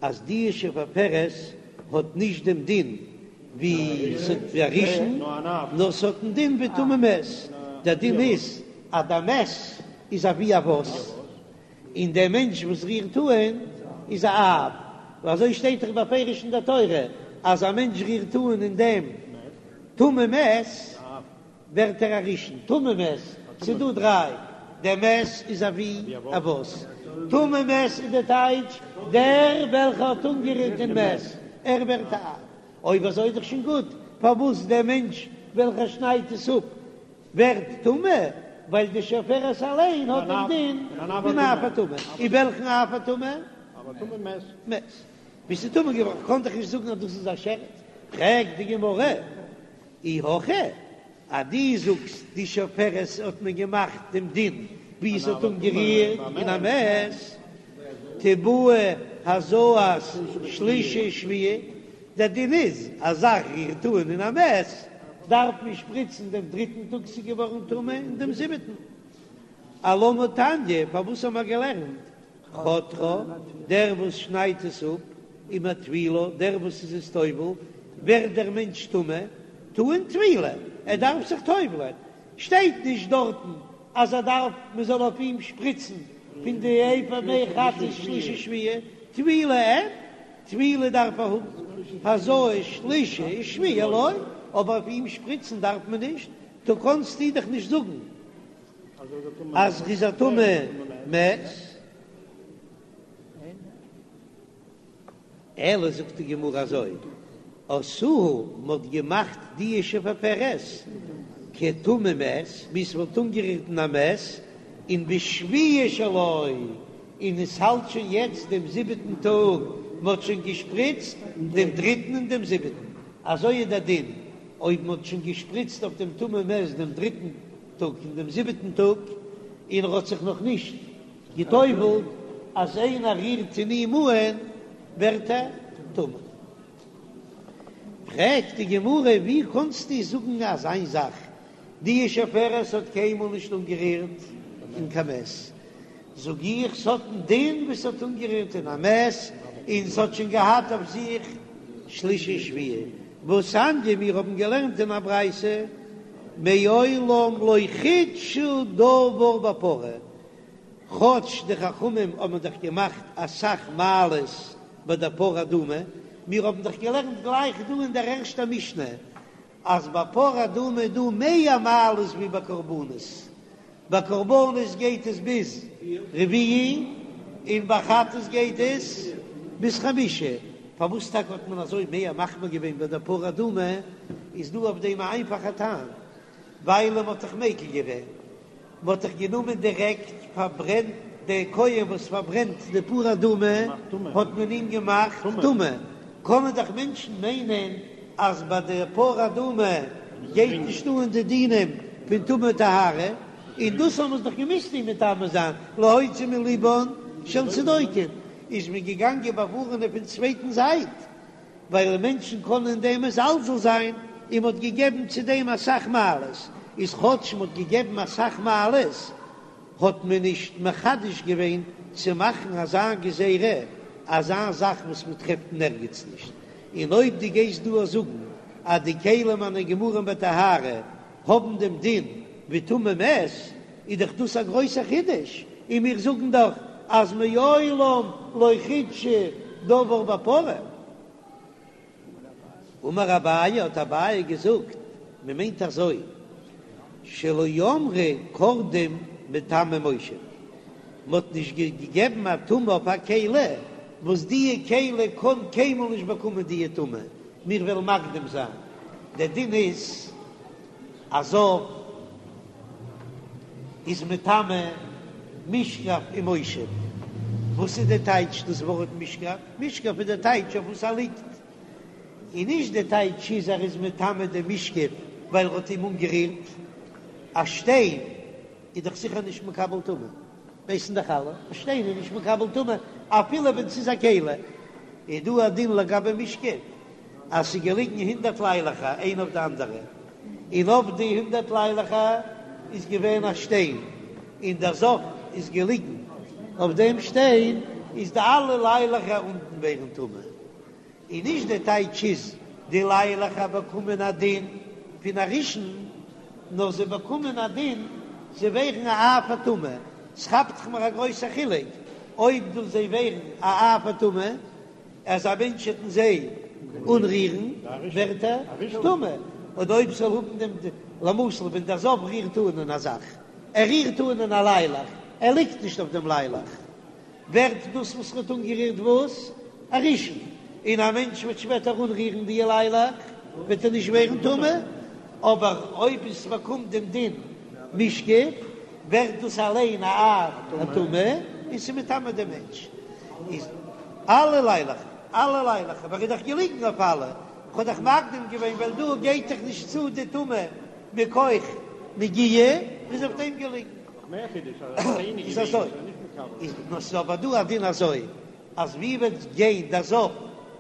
אז די שפופרת האט נישט דעם דין ווי א ראשון, נאר ס'האט דעם דין ווי טמא מת, דער דין איז אז דער מת איז אבי אבות, און דער מענטש וואס רירט אן איז א אב, ווייל אזוי שטייט דאך בפירוש אין דער תורה אז א מענטש רירט אן אין דעם טמא מת, ווערט ער א ראשון, טמא מת, ס'איז דא דריי, דער מת איז אבי אבות, טמא מת איז די טייטש דער וועלכע האט אנגערירט אין מת, ער ווערט א אב, אויב אזוי איז דאך שוין גוט, פארוואס דער מענטש וועלכער שניידט עס אפ ווערט טמא, ווייל די שפופרת אליין האט דעם דין פון אב הטומאה, און וועלכן אב הטומאה? מת. ווי ס'איז טמא געווארן, קען דאך נישט זאגן אז דאס איז א שרץ, פרעגט די גמרא, אי הכי, אז דו זאגסט די שפופרת האט מען געמאכט דעם דין ווי עס האט אנגערירט אין א מת, תיבעי הזאת שלישי שביעי, דער דין איז אז א זאך רירט אן אין א מת דארף מען שפריצן דעם דריטן טאג ס'איז געווארן טמא און דעם זיבעטן. אלמה תניא, פארוואס האבן מיר געלערנט חותכה, דער וואס שניידט עס אפ, ומטבילה, דער וואס איז עס טובל, ווערט דער מענטש טמא, טעון טבילה, ער דארף זיך טובל'ען, שטייט נישט דארטן אז ער דארף מען זאל אויף אים שפריצן פון די אפר מי חטאת שלישי שביעי, טבילה אין, טבילה דארף ער האבן, הזאת שלישי ושביעי לא, אבער אויף אים שפריצן דארף מען נישט, טא קאנסטו דאך נישט זאגן אז ר'איז א טמא מת. אלא זאגט די גמרא אזוי, עשאוה מ'האט געמאכט די שפופרת כטמא מת, ווי ס'וואלט אנגערירט אין א מת, און בשביעי שלו, און עס האלט שוין יעצט דעם זיבעטן טאג, מ'האט שוין געשפריצט דעם דריטן און דעם זיבעטן, אזוי איז דער דין אויב מ'האט שוין געשפריצט אויף דעם טמא מת דעם דריטן טאג און דעם זיבעטן טאג, און ער האט זיך נאך נישט גע'טובל'ט, אז איינער רירט אין אים אהן ווערט ער טמא. פרעגט די גמרא, ווי קאנסטו זאגן אזיין זאך, די שפופרת האט קיינמאל נישט אנגערירט אין קיין מת, זאג איך ס'האט א דין ווי ס'האט אנגערירט אין א מת, און ס'האט שוין געהאט אויף זיך שלישי שביעי, והתניא מיר האבן געלערנט אין א ברייתא מעולם לא חידשו דבר בפרה, כאטש די חכמים האבן דאך געמאכט אסאך מעלות ביי דער פרה אדומה, מיר האבן דאך געלערנט גלייך דא אין דער ערשטער משנה אז ביי פרה אדומה איז דא מער מעלות ווי ביי קרבנות, ביי קרבנות גייט עס ביז רביעי און ביי חטאת גייט עס ביז חמישי, פארוואס טאקע האט מען אזוי מער מחמיר געווען ביי דער פרה אדומה, איז דא אויף דעם א איינפאכע טעם, ווייל מען האט דאך מיקל געווען, מען האט דאך גענומען דירעקט פארברענט דער כהן וואס פארברענט די פרה אדומה האט מען אים געמאכט טמא, קענען דאך מענטשן מיינען אז ביי די פרה אדומה גייט נישט אן די דינים פון טומאה טהרה, און דאס האבן מיר דאך געמוזט אים מטמא זיין להוציא מלבן של צדוקים, איז מען געגאנגען באווארענען פון צווייטן זייט ווייל מענטשן קענען אין דעם מזלזל זיין, און מ'האט געגעבן צו דעם אסאך מעלות, איז כאטש מ'האט געגעבן אסאך מעלות, האט מען נישט מחדש געווען צו מאכן אזא גזירה, אזא זאך וואס מ'טרעפט אין ערגעץ נישט, און אויב דו גייסט דא זאגן אז די כלים הנגמרים בטהרה האבן דעם דין ווי טמא מת, איז דאך דאס א גרויסער חידוש, און מיר זאגן דאך אז מעולם לא חידשו דבר בפרה. אמר אביי, האט אביי געזאגט, מען מיינט אזוי, שלא אמרו קורדום מטמא מושב, מען האט נישט געגעבן א טומאה אויף א כלי, וואס די כלי קען קיינמאל נישט באקומען די טומאה, מיר וועלן מקדים זיין, דער דין איז א זב איז מטמא משכב ומושב, וואס איז די טייטש דאס ווארט משכב? משכב איז די טייטש אויף וואס ער ליגט, און נישט די טייטש איז ער איז מטמא די משכב ווייל ער האט אים אנגערירט, א שטיין איז דאך זיכער נישט מקבל טומאה, ווייסן דאך אלע, א שטיין איז נישט מקבל טומאה אפילו ווען ס'איז א כלי, איז דא א דין לגבי משכב אז ס'איז געליגן הונדערט ליילעכער איינע אויף די אנדערע, און אויף די הונדערט ליילעכער איז געווען א שטיין, און דער זב איז געליגן אויף דעם שטיין, איז די אלע ליילעכער אונטן ווערן טמא. און נישט די טייטש איז די ליילעכער באקומען א דין פון א ראשון, נאר זיי באקומען א דין זיי ווערן א אב הטומאה, ס'כאפט זיך מיר א גרויסע חילוק אויב דורך זיי ווערן א אב הטומאה, אז א מענטש וועט אין זיי אנרירן ווערט ער טמא, אדער אויב ס'זאל האבן דעם למשל ווען דער זב רירט אן אין א זאך, ער רירט אן אין א ליילעך, ער ליגט נישט אויף דעם ליילעך, ווערט דאס וואס ר'האט אנגערירט וואס? א ראשון, און א מענטש וועט שפעטער אנרירן די ליילעך וועט ער נישט ווערן טמא, אבער אויב עס באקומט דעם דין משכב ווערט דאס אליין א אב הטומאה און ס'איז מטמא דעם מענטש. איז אלע ליילעכער, אלע ליילעכער, ווייל ער איז דאך געליגן אויף אלע, כ'האב דאך מקדים געווען ווייל דא גייט דאך נישט צו די טומאה מכח נגיעה, איז אויף דעם געליגן. איז אזוי, איז נאר ס'איז אבער דא א דין אזוי, אז ווי וועט גיין דער זב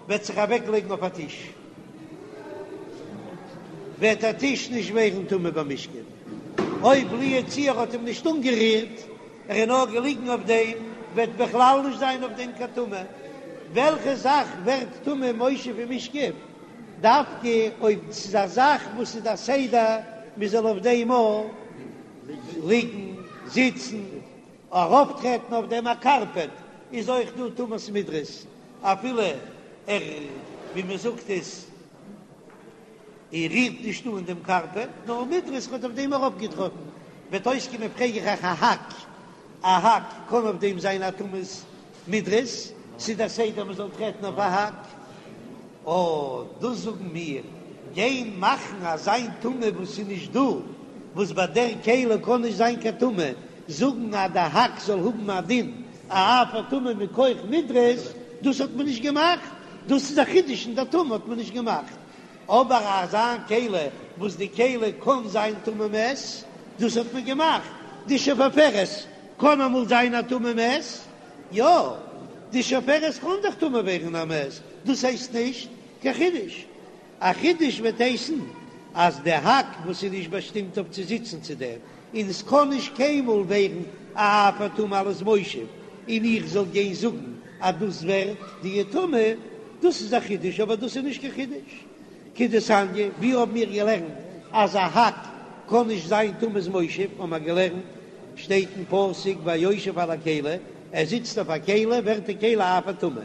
וועט זיך אוועק לייגן אויף א טיש, וועט דער טיש נישט ווערן טמא במשכב, אויב לו יצוייר האט אים נישט אנגערירט, ער איז נאר געליגן אויף דעם, וועט בכלל נישט זיין אויף דעם קיין טומאה. וועלכע זאך ווערט טמא מושב ומשכב? דווקא אויב ס'איז א זאך וואס איז א סדר מ'זאל אויף דעם אויך ליגן, זיצן, ארויפטרעטן אויף דעם א קארפעט, איז אויך דא טומאת מדרס, אפילו ער, ווי מען זאגט עס, ער רירט נישט אן דעם קארפעט, נאר מדרס האט אויף דעם ארויפגעטראטן, וועט אויסקומען פרעג איך אייך א האק, א האק קען אויף דעם זיין א טומאת מדרס, ס'איז דער סדר מען זאל טרעטן אויף א האק. אָ, דאָס זאָגן מיר, גיין מאַכן אַזאַ טומאה וואָס איז נישט דאָ, וואָס ביי דער כלי קאָן נישט זיין קיין טומאה, זאָגן אַז דער האַק זאָל האָבן אַ דין אַ אב הטומאה מכח מדרס, דאָס האָט מען נישט געמאַכט, דאָס איז אַ חידוש אין דער טומאה האָט מען נישט געמאַכט, אָבער אַזאַ כלי וואָס די כלי קאָן זיין טמא מת, דאָס האָט מען געמאַכט, די שפופרת קאָן אַמאָל זיין אַ טמא מת, יא, די שפופרת קאן דאך טמא ווערן א מת, דאס הייסט נישט קיין חידוש. א חידוש וועט הייסן אז די האק וואס איז נישט באשטימט אויף צו זיצן צו דעם, און עס קען נישט קיינמאל ווערן א אב הטומאה אלס מושב, און איך זאל גיין זאגן אז דאס ווערט די טומאה, דאס איז א חידוש, אבער דאס איז נישט קיין חידוש. כדתניא, ווי האבן מיר געלערנט אז א האק קען נישט זיין טומאת מושב, האבן מיר געלערנט, שטייט אין פסוק והיושב על הכלי, ער זיצט אויף א כלי, ווערט די כלי אב הטומאה.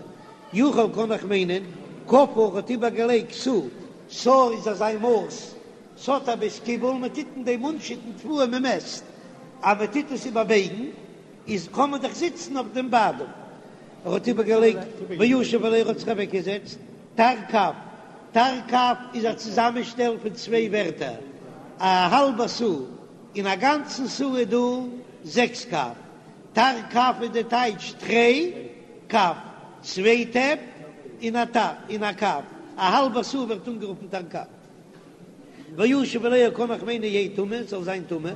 יכול קען איך מיינען, כפה האט איבערגעלייגט סאה, סאה איז אזא מאס, ס'האט א בית קיבול, מען טוט אין דעם אנשיטן תבואה מען מעסט, אז מען טוט עס איבערבייגן איז קען מען דאך זיצן אויף דעם ביידל. ער האט איבערגעלייגט וישב עליה ער האט זיך אוועקגעזעצט, תרקב, תרקב איז א צוזאמענשטעל פון צוויי ווערטער, א האלבע סאה, אין א גאנצן סאה איז דא זעקס קב, תרקב איז די טייטש תרי קב, צוויי טעפ און א טאפ און א קב, א האלבע סאה ווערט אנגערופן תרקב. וישב עליה קען איך מיינען יהא טמא, זאל זיין טמא,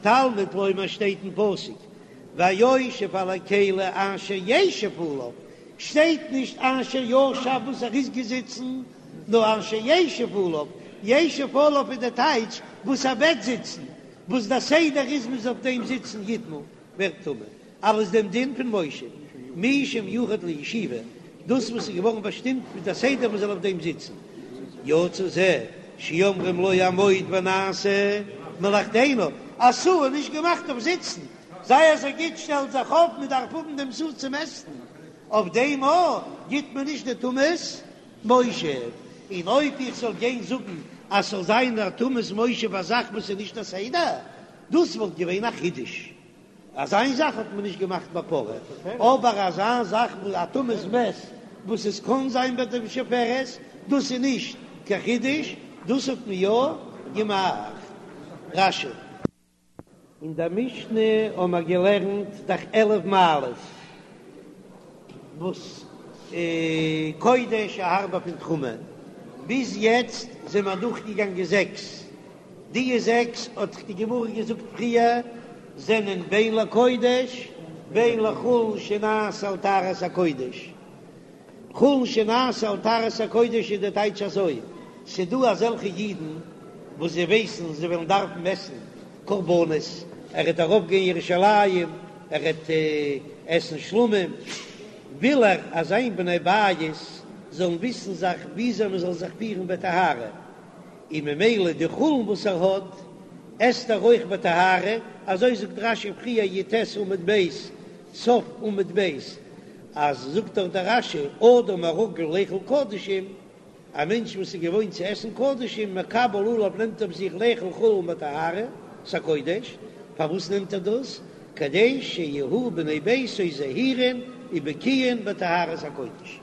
תלמוד לומר שטייט אין פסוק והיושב על הכלי אשר ישב עליו, שטייט נישט אשר ישב וואס ער איז געזיצן, נאר אשר ישב עליו, ישב עליו איז די טייטש וואס ער וועט זיצן, וואס דער סדר איז מ'זאל אויף דעם זיצן יטמא ווערט טמא, אלס דעם דין פון מושב, מי שמיוחד לישיבה, דאס וואס איז געווארן באשטימט מיט א סדר מ'זאל אויף דעם זיצן, יצא זה שאומרים לו עמוד ונעשה מלאכתנו, א סאה איז נישט געמאכט אויף זיצן, זיי אזוי גוט שטעל זיך אויף, מען דארף האבן דעם סאה צו מעסטן, אויף דעם א גיט מען נישט די טומאת מושב, און אויב איך זאל גיין זאגן אז ס'זאל זיין א טומאת מושב א זאך וואס איז נישט א סדר, דאס וואלט געווען א חידוש, אזא זאך האט מען נישט געמאכט ביי פרה, אבער אזא זאך ווי א טומאת מת וואס עס קען זיין ביי די שפופרת, דאס איז נישט קיין חידוש, דאס האט מען יא געמאכט. רש"י. אין דער משנה האבן מיר געלערנט דאך 11 מעלות וואס קודש איז הארבער פון תרומה, ביז יעצט זענען מיר אדורכגעגאנגען זעקס, די זעקס האט דאך די גמרא געזאגט פריער זענען בין לקודש בין לחולין שנעשו על טהרת הקודש, חולין שנעשו על טהרת הקודש איז די טייטש אזוי, ס'דא אזעלכע אידן וואס זיי ווייסן זיי וועלן דארפן עסן קרבנות, ער וועט ארויפגיין ירושלים, ער וועט עסן שלמים, וויל ער אז זיין בני בית זאלן וויסן זיך וויאזוי מען זאל זיך פירן בטהרה, און ממילא די חולין וואס ער האט עסט ער אויך בטהרה, אזוי זאגט רש"י פריער י"ט עמוד ב', סוף עמוד ב', אז זאגט דאך דער רש"י אדם הרגיל לאכול קדשים, א מענטש וואס איז געוואוינט צו עסן קדשים, מקבל עליו נעמט אויף זיך לאכול חולין בטהרת הקודש, פארוואס נעמט ער דאס? כדי שיהיו בני ביתו זהירין ובקיאין בטהרת הקודש.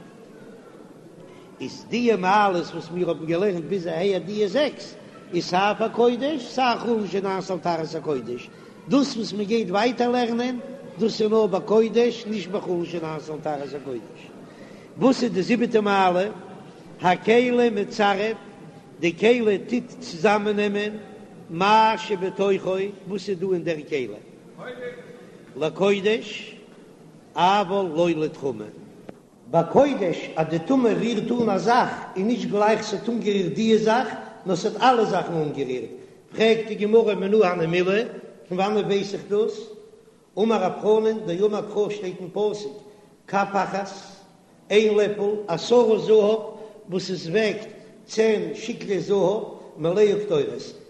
איז דיע מעלות וואס מיר האבן געלערנט ביז אהער דיע זעקס, איז סיי פאר קודש סיי חולין שנעשו על טהרת הקודש, דאס וואס מען גייט ווייטער לערנען, דאס איז נאר ביי קודש, נישט ביי חולין שנעשו על טהרת הקודש. וואס איז די זיבעטע מעלה? הכלי מצרף, די כלי טוט צוזאמעננעמען מה שבתוכו, וואס איז דא אין דער כלי, לקודש, אבל לא לתרומה. ביי קודש אז די טומאה רירט אן א זאך איז נישט גלייך ס'האט אנגערירט דיע זאך, נאר ס'האט אלע זאכן אנגערירט, פרעגט די גמרא מנא הני מילי, פון וואנעט ווייס איך דאס? אמר רב חנן, דאמר קרא שטייט אין פסוק, כף אחת, איין לעפל, עשרה זהב, וואס עס וועגט צען שקלי זהב, מלאה קטורת,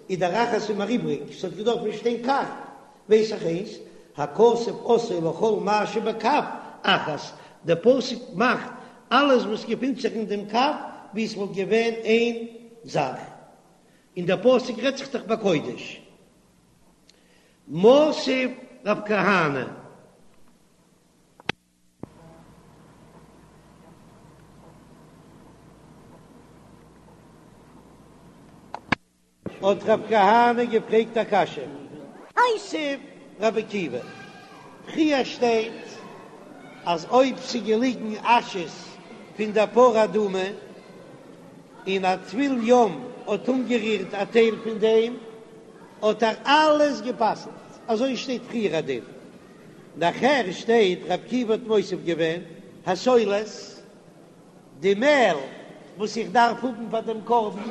איז דער אחת איז מיר איבריג, ס'האט געדארפט שטיין כף, ווייס איך איינס, הכתוב עשאו לכל מה שבכף אחת, דער פסוק מאכט אלעס וואס געפינט זיך אין דעם כף ווי עס וואלט געווען איין זאך, און דער פסוק רעדט זיך דאך בקודש. מתיב רב כהנא. האט רב כהנא געפרעגט א קשיא. מתיב רבי עקיבא, פריער שטייט אז אויב ס'איז געליגן אשעס פון דער פרה אדומה און א טבול יום האט אנגערירט א טייל פון דעם האט ער אלעס גע'פסל'ט, אזוי שטייט פריער א דין, נאכער שטייט רבי עקיבא האט מוסיף געווען הסולת. די מעל. וואס איך דארף האבן פאר דעם קרבן,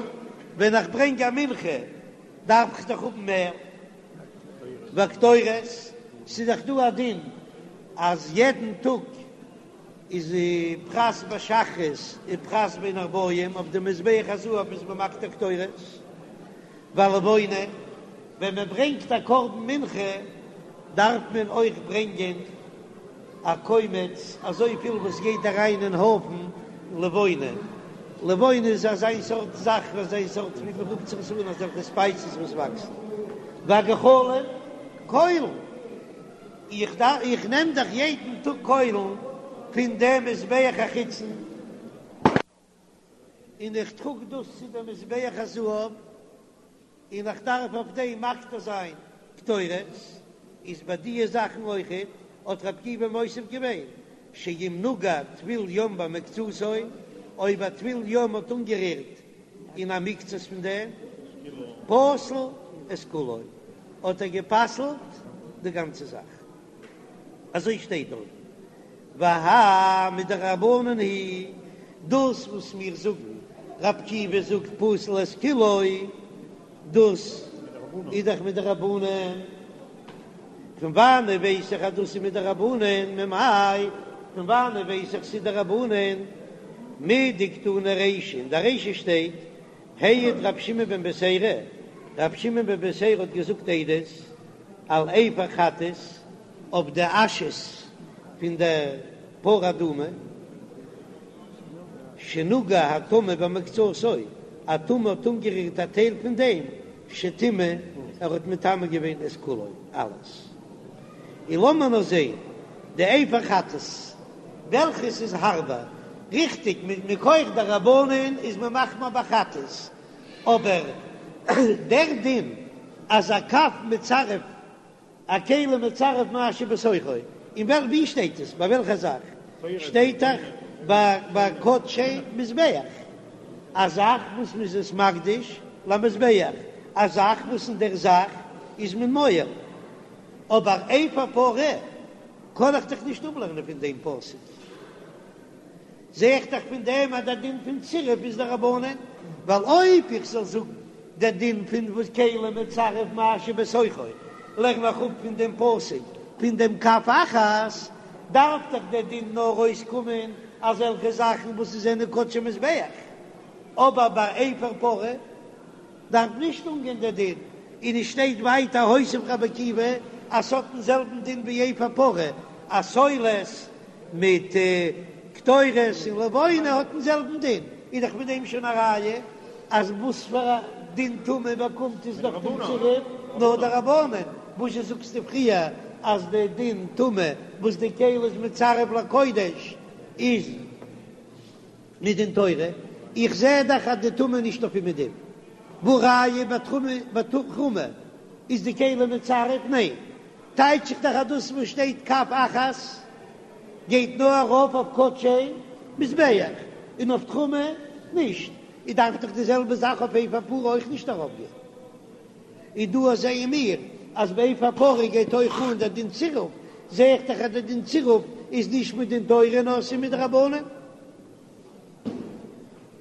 ווען איך ברענג א מנחה דארף איך דאך האבן מער. והקטורת, ס'איז דאך דא א דין אז יעדן טאג איז פרס בשחרית און פרס בין הערבים אויף די מזבח הזהב איז מען מקטיר קטורת. והלבונה, ווען מען ברענגט א קרבן מנחה דארף מען אויך ברענגען א קומץ אזויפיל וואס גייט אריין אין הויפן לבונה, לבונה איז אזיין סארט זאך, אזיין סארט ווי מען רופט זיך עס אן אזעלכע ספייסעס וואס וואקסן, והגחלים, קוילן, איך דארף איך נעם דאך יעדן טאג קוילן פון דעם מזבח החיצון. און איך טראג דאס צו דעם מזבח הזהב, און איך דארף אויף דעם מקטיר זיין קטורת, איז ביי דיע זאכן אויכעט, האט רבי עקיבא מוסיף געווען, שאם נגע טבול יום במקצתו, אויב א טבול יום האט אנגערירט אין א מקצת פון דעם, פסל את כולו, האט ער גע'פסל'ט די גאנצע זאך. אזוי שטייט דארט, והאי מדרבנן היא, דאס וואס מיר זאגן, רבי עקיבא זאגט פסל את כולו, דאס איז דאך מדרבנן, פון וואנען ווייס איך אז דאס איז מדרבנן, ממאי, פון וואנען ווייס איך ס'איז דרבנן, מדקתני רישא, אין די רישא שטייט, העיד רבי שמעון בן בתירא, רבי שמעון בן בתירא האט געזאגט עדות, על אפר חטאת, אויף די אשעס פון דער פרה אדומה, שנגע הטמא במקצתו, א טמא האט אנגערירט א טייל פון דעם, שטימא, ער האט מטמא געווען את כולו, אלעס. און לאמיר נאר זען די אפר חטאת, וועלכעס איז הארבער, ריכטיג, מכח דרבנן איז מען מחמיר ביי חטאת, אבער דער דין אז א קב מצרף א כלי מצרף מה שבתוכו, אין וועל ווי שטייט עס? ביי וועלכע זאך? שטייט דאך ביי ביי קדשי מזבח, א זאך וואס מ'איז עס מקדיש למזבח, א זאך וואס אין דער זאך איז מען מועל, אבער אפר פרה קען איך דאך נישט אפלערנען פון דעם פסוק. זע איך דאך פון דעם אז דער דין פון צירוף איז דרבנן, ווייל אויב איך זאל זאגן דער דין פון וואס כלי מצרף מה שבתוכו, לערן איך אפ פון דעם פסוק פון דעם כף אחת, דארף דאך דער דין נאר אויסקומען אזעלכע זאכן וואס עס זענען קדשי מזבח, אבער ביי אפר פרה דארף נישט אנגיין דער דין, און עס שטייט ווייטער הוסיף רבי עקיבא אז ס'האט דעם זעלבן דין ווי אפר פרה, אז סולת מיט קטורת און לבונה האט דעם זעלבן דין, איז דאך מיט דעם שוין א ראיה אז וואס פאר א דין טומאה באקומט עס דורך דעם צירוף נאר דרבנן, וואזשע זאגסטו פריער אז די דין טומאה וואס די כלי איז מצרף לקודש איז מדין תורה, איך זע דאך אז די טומאה נישט אויף אומעדום, והא ראיה ביי תרומה איז די כלי מצרף? ניין, טייטש איך דאך אז דאס וואס שטייט כף אחת גייט נאר ארויף אויף קדשי מזבח און אויף תרומה נישט, איז דארף דאך די זעלבע זאך אויף אפר פרה אויך נישט ארויפגיין. און דא זעען מיר אז ביי אפר פרה גייט אויך אן דער דין צירוף, זע איך דאך אז דער דין צירוף איז נישט מדין תורה נאר ס'איז מדרבנן.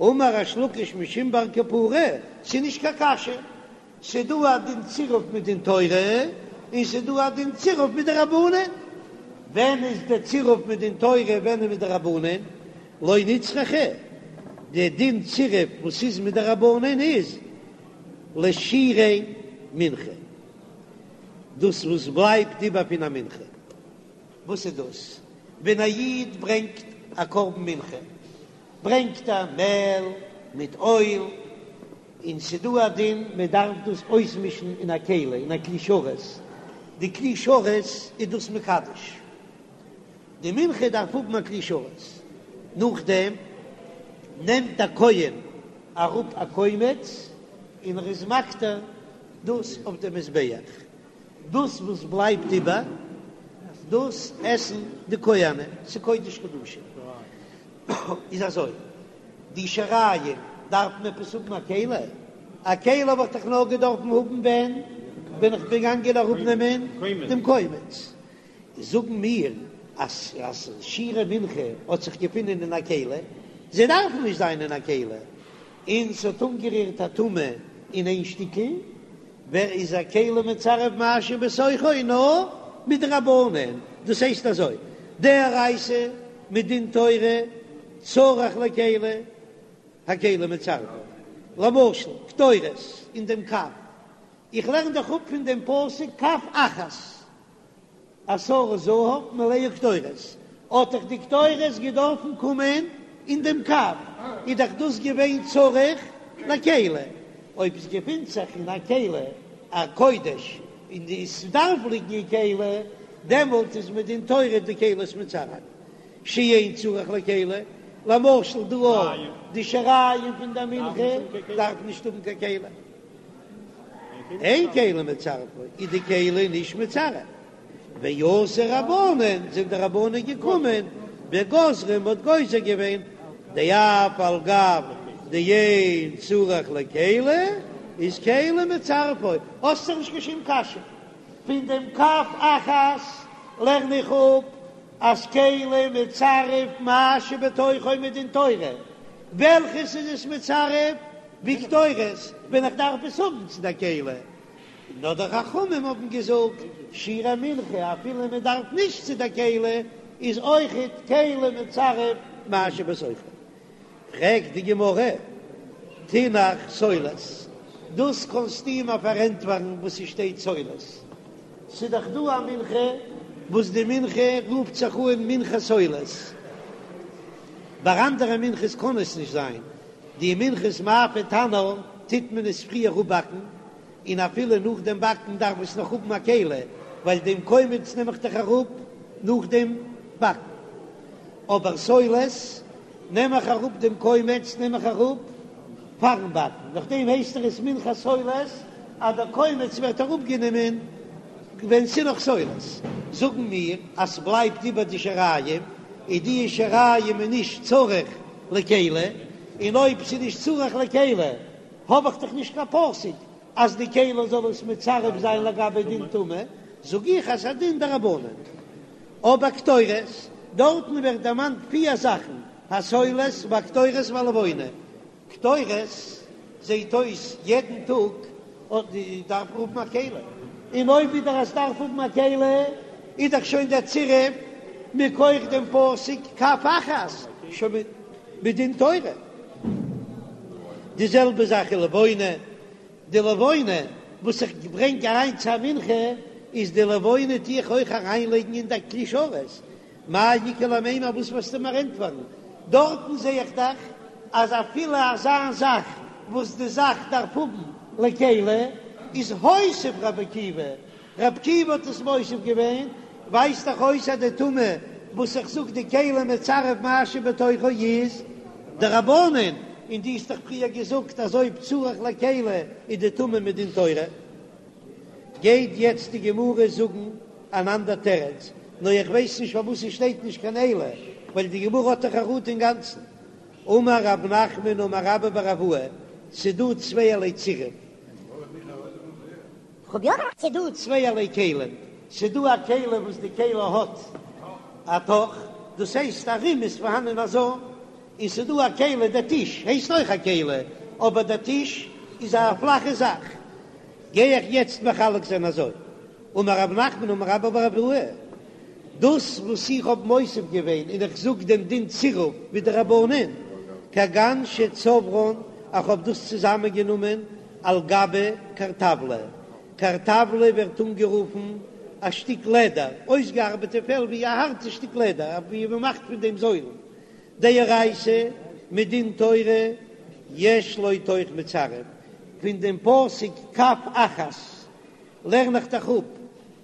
אמר ריש לקיש משום בר קפרא, ס'איז נישט קיין קשיא, ס'דא א דין צירוף מדין תורה און ס'דא א דין צירוף מדרבנן. ווען איז די צירוף מדין תורה ווען איז מדרבנן? לא נצרכה, די דין צירוף וואס איז מדרבנן איז לשירי מנחה, דאס וואס בלייבט איבער פון א מנחה. וואס איז דאס? ווען א איד ברענגט א קרבן מנחה, ברענגט ער מעל מיט אויל, און ס'דא א דין מען דארף דאס אויסמישן אין א כלי, אין א כלי שרת, די כלי שרת איז דאס מקדש, די מנחה דארף האבן א כלי שרת, נאכדעם נעמט דער כהן אראפ א קומץ און ער איז מקטיר דאס אויף די מזבח, דאס וואס בלייבט איבער דאס עסן די כהנים, ס'קודש קדשים. איז אזוי, די שיריים דארף מען עפעס האבן א כלי? א כלי האב איך דאך נאר געדארפן האבן ווען ווען איך בין געגאנגען אראפנעמען דעם קומץ. זאגן מיר אז אז שירי מנחה האט זיך געפונען אין א כלי, זיי דארפן נישט זיין אין א כלי, און ס'האט אנגערירט א טומאה אין איין שטיקל, ווער איז א כלי מצרף מה שבתוכו נאר מדרבנן, דאס הייסט אזוי, דאורייתא מדין תורה צריך לכלי, הכלי מצרפו, למשל קטורת אין דעם קב, איך לערן דאך אפ פון דעם פסוק כף אחת. עשרה זהב מלאה קטורת, האט דאך די קטורת געדארפן קומען אין דעם קב, איז דאך דאס געווען צריך לכלי, אויב עס געפינט זיך אין א כלי א קודש און עס דארף ליגן אין כלי, דעמאלט איז מדין תורה די כלי עס מצרף, שאין צריך לכלי, למשל דא אויך די שיריים פון די מנחה דארף נישט האבן קיין כלי. אין כלי מצרפו איז די כלי נישט מצרף, ואתו רבנן זענען די רבנן געקומען וגזרו מ'האט גוזר געווען דאף על גב דאין צריך לכלי איז כלי מצרפו, האסט דאך נישט קיין שום קשיא, פון דעם כף אחת לערן איך אפ אז כלי מצרף מה שבתוכו מדין תורה, וועלכעס איז עס מצרף? ווי קטורת ווען איך דארף עס האבן צו די כלי, נאר די חכמים האבן געזאגט שירי מנחה אפילו מען דארף נישט צו די כלי איז אויכעט כלי מצרף מה שבתוכו. פרעגט די גמרא, תינח סולת, דאס קענסטו מיר פארענטפערן וואס ס'שטייט סולת, ס'דאך דא א מנחה וואס די מנחה רופט זיך אן מנחת סולת, ביי אנדערע מנחות קען עס נישט זיין, די מנחת מאפה תנור טוט מען עס פריער אפבאקן, און אפילו נאך דעם באקן דארף עס נאך האבן א כלי, ווייל דעם קומץ נעם איך דאך אראפ נאך דעם באקן. אבער סולת נעם איך אראפ דעם קומץ נעם איך אראפ פארן באקן, נאכדעם הייסט עס מנחת סולת אז דער קומץ ווערט אראפגענומען ווען ס'איז נאך סולת. זאגן מיר אז ס'בלייבט איבער די שיריים, איז די שיריים איז נישט צריך לכלי, און אויב ס'איז נישט צריך לכלי האב איך דאך נישט קיין פסוק אז די כלי זאל עס מצרף זיין לגבי דין טומאה, זאג איך אז ס'איז א דין דרבנן. אבער קטורת, דארטן ווערט דערמאנט פיר זאכן, הסולת והקטורת והלבונה, קטורת זעהט אויס יעדן טאג אט די דארף האבן א כלי, און אויב ווידער אז דארף האבן א כלי איז דאך שוין דער צירוף מכח דעם פסוק כף אחת שוין מדין תורה. די זעלבע זאך איז לבונה, די לבונה וואס איך ברענג אריין צו א מנחה איז די לבונה טו איך אויך אריינלייגן אין די כלי שרת, מאי איכא למימר וואס וועסטו מיר ענטפערן? דארטן זע איך דאך אז אפילו אזא זאך וואס די זאך דארף האבן לכלי איז הוסיף רבי עקיבא, רבי עקיבא האט עס מוסיף געווען, ווייזט דאך אויס אז די טומאה וואס איך זאג די כלי מצרף מה שבתוכו איז דרבנן, און דו האסט דאך פריער געזאגט אז אויב צריך לכלי איז די טומאה מדין תורה. גייט יעצט די גמרא זאגן אן אנדער תירוץ, נאר איך ווייס נישט פארוואס עס שטייט נישט קיין אלא, ווייל די גמרא האט דאך חרטה אינגאנצן. אמר רב נחמן אמר רבה בר אבוה, ס'דא צווייערליי צירוף. ס'דא צווייערליי כלים, ס'דא א כלי וואס די כלי האט א תוך, דאס הייסט ארום איז פארהאנען א זוים, און ס'דא א כלי, דער טיש הייסט אויך א כלי, אבער דער טיש איז א פלאכע זאך. גיי איך יעצט מחלק זיין אזוי, אמר רב נחמן אמר רבה בר אבוה, דאס וואס איך האב מוסיף געווען און איך זאג דעם דין צירוף ווי די רבנן, כגון שצברן, איך האב דאס צוזאמען גענומען על גבי קרטבלא, קרטבלא ווערט אנגערופן א שטיק לעדער, אויסגעארבעטע פעל ווי א הארטע שטיק לעדער ווי מען מאכט פון דעם זוילן, דאורייתא מדין תורה יש לו תוך מצרף, פון דעם פסוק כף אחת לערן איך דאך אפ,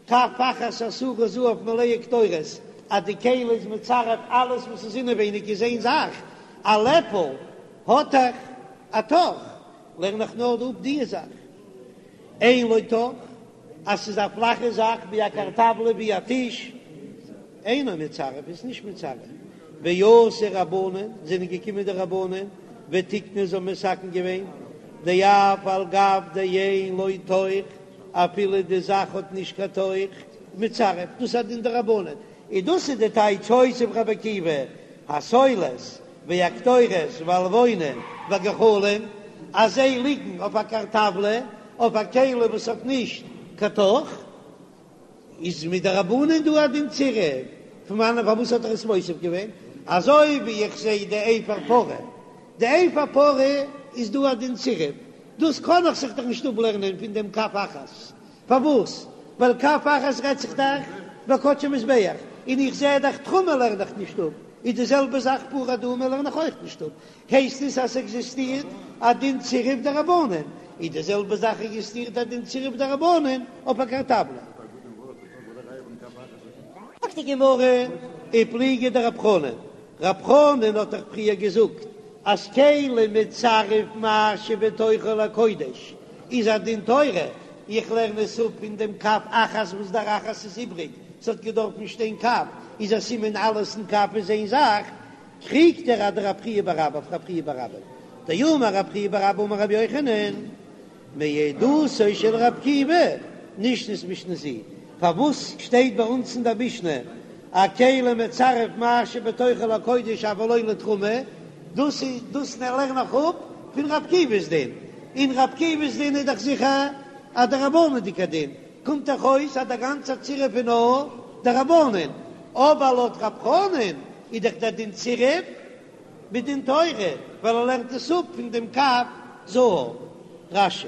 כף אחת עשרה זהב מלאה קטורת, אז די כלי איז מצרף אלעס וואס איז אינעווייניג איז איין זאך, א לעפל האט דאך א תוך, לערן איך נאר אפ די זאך, אין לו תוך, אז ס'איז א פלאכע זאך ווי א קרטבלא ווי א טיש, אינו מצרף איז נישט מצרף, ואתו רבנן זענען געקומען די רבנן ותיקנו זיי האבן מתקן געווען דאף על גב דאין לו תוך אפילו די זאך האט נישט קיין תוך מצרף דאס איז א דין דרבנן און דאס איז די טייטש הוסיף רבי עקיבא הסולת. והקטורת והלבונה והגחלים, אז זיי ליגן אויף א כרטבלא, אויף א כלי וואס האט נישט קיין תוך, איז מדרבנן דא א דין צירוף, פון וואנען פארוואס האט ער עס מוסיף געווען? אזוי ווי איך זע די אפר פרה, די אפר פרה איז דא א דין צירוף, דאס קען איך זיך דאך נישט אפלערנען פון דעם כף אחת, פארוואס? ווייל כף אחת רעדט זיך דאך ביי קדשי מזבח, און איך זע דאך תרומה לערן איך נישט אפ, איז די זעלבע זאך פרה אדומה לערן איך אויך נישט אפ, הייסט עס אז ס'עקזיסטירט א דין צירוף דרבנן, איז די זעלבע זאך עקזיסטירט א דין צירוף דרבנן אויף א כרטבלא. זאגט די גמרא, ופליגא דרב חנן, רב חנן האט דאך פריער געזאגט אז כלי מצרף מה שבתוכו לקודש איז א דין תורה, איך לערן עס אפ פון דעם כף אחת וואס דער אחת איז איבריג, ס'האט געדארפן שטיין כף, איז א סימן אלעס אין כף איז איין זאך, קריגט ער אדרב חייא בר אבא אויף רב חייא בר אבא, דאמר רב חייא בר אבא אמר רבי יוחנן, מעדותו של רב עקיבא נשנית משנה זו, פארוואס שטייט ביי אונז אין דער משנה א כלי מצרף מה שבתוכו לקודש אבל לא לתרומה, דאס איז דאס לערן איך אפ פון רב עקיבא'ס דין, און רב עקיבא'ס דין איז דאך זיכער א דרבנן'דיגע דין, קומט דאך אויס אז דער גאנצער צירוף איז נאר דרבנן, אבער לויט רב חנן איז דאך דער דין צירוף מדין תורה, ווייל ער לערנט עס אפ פון דעם כף זהב. רש"י.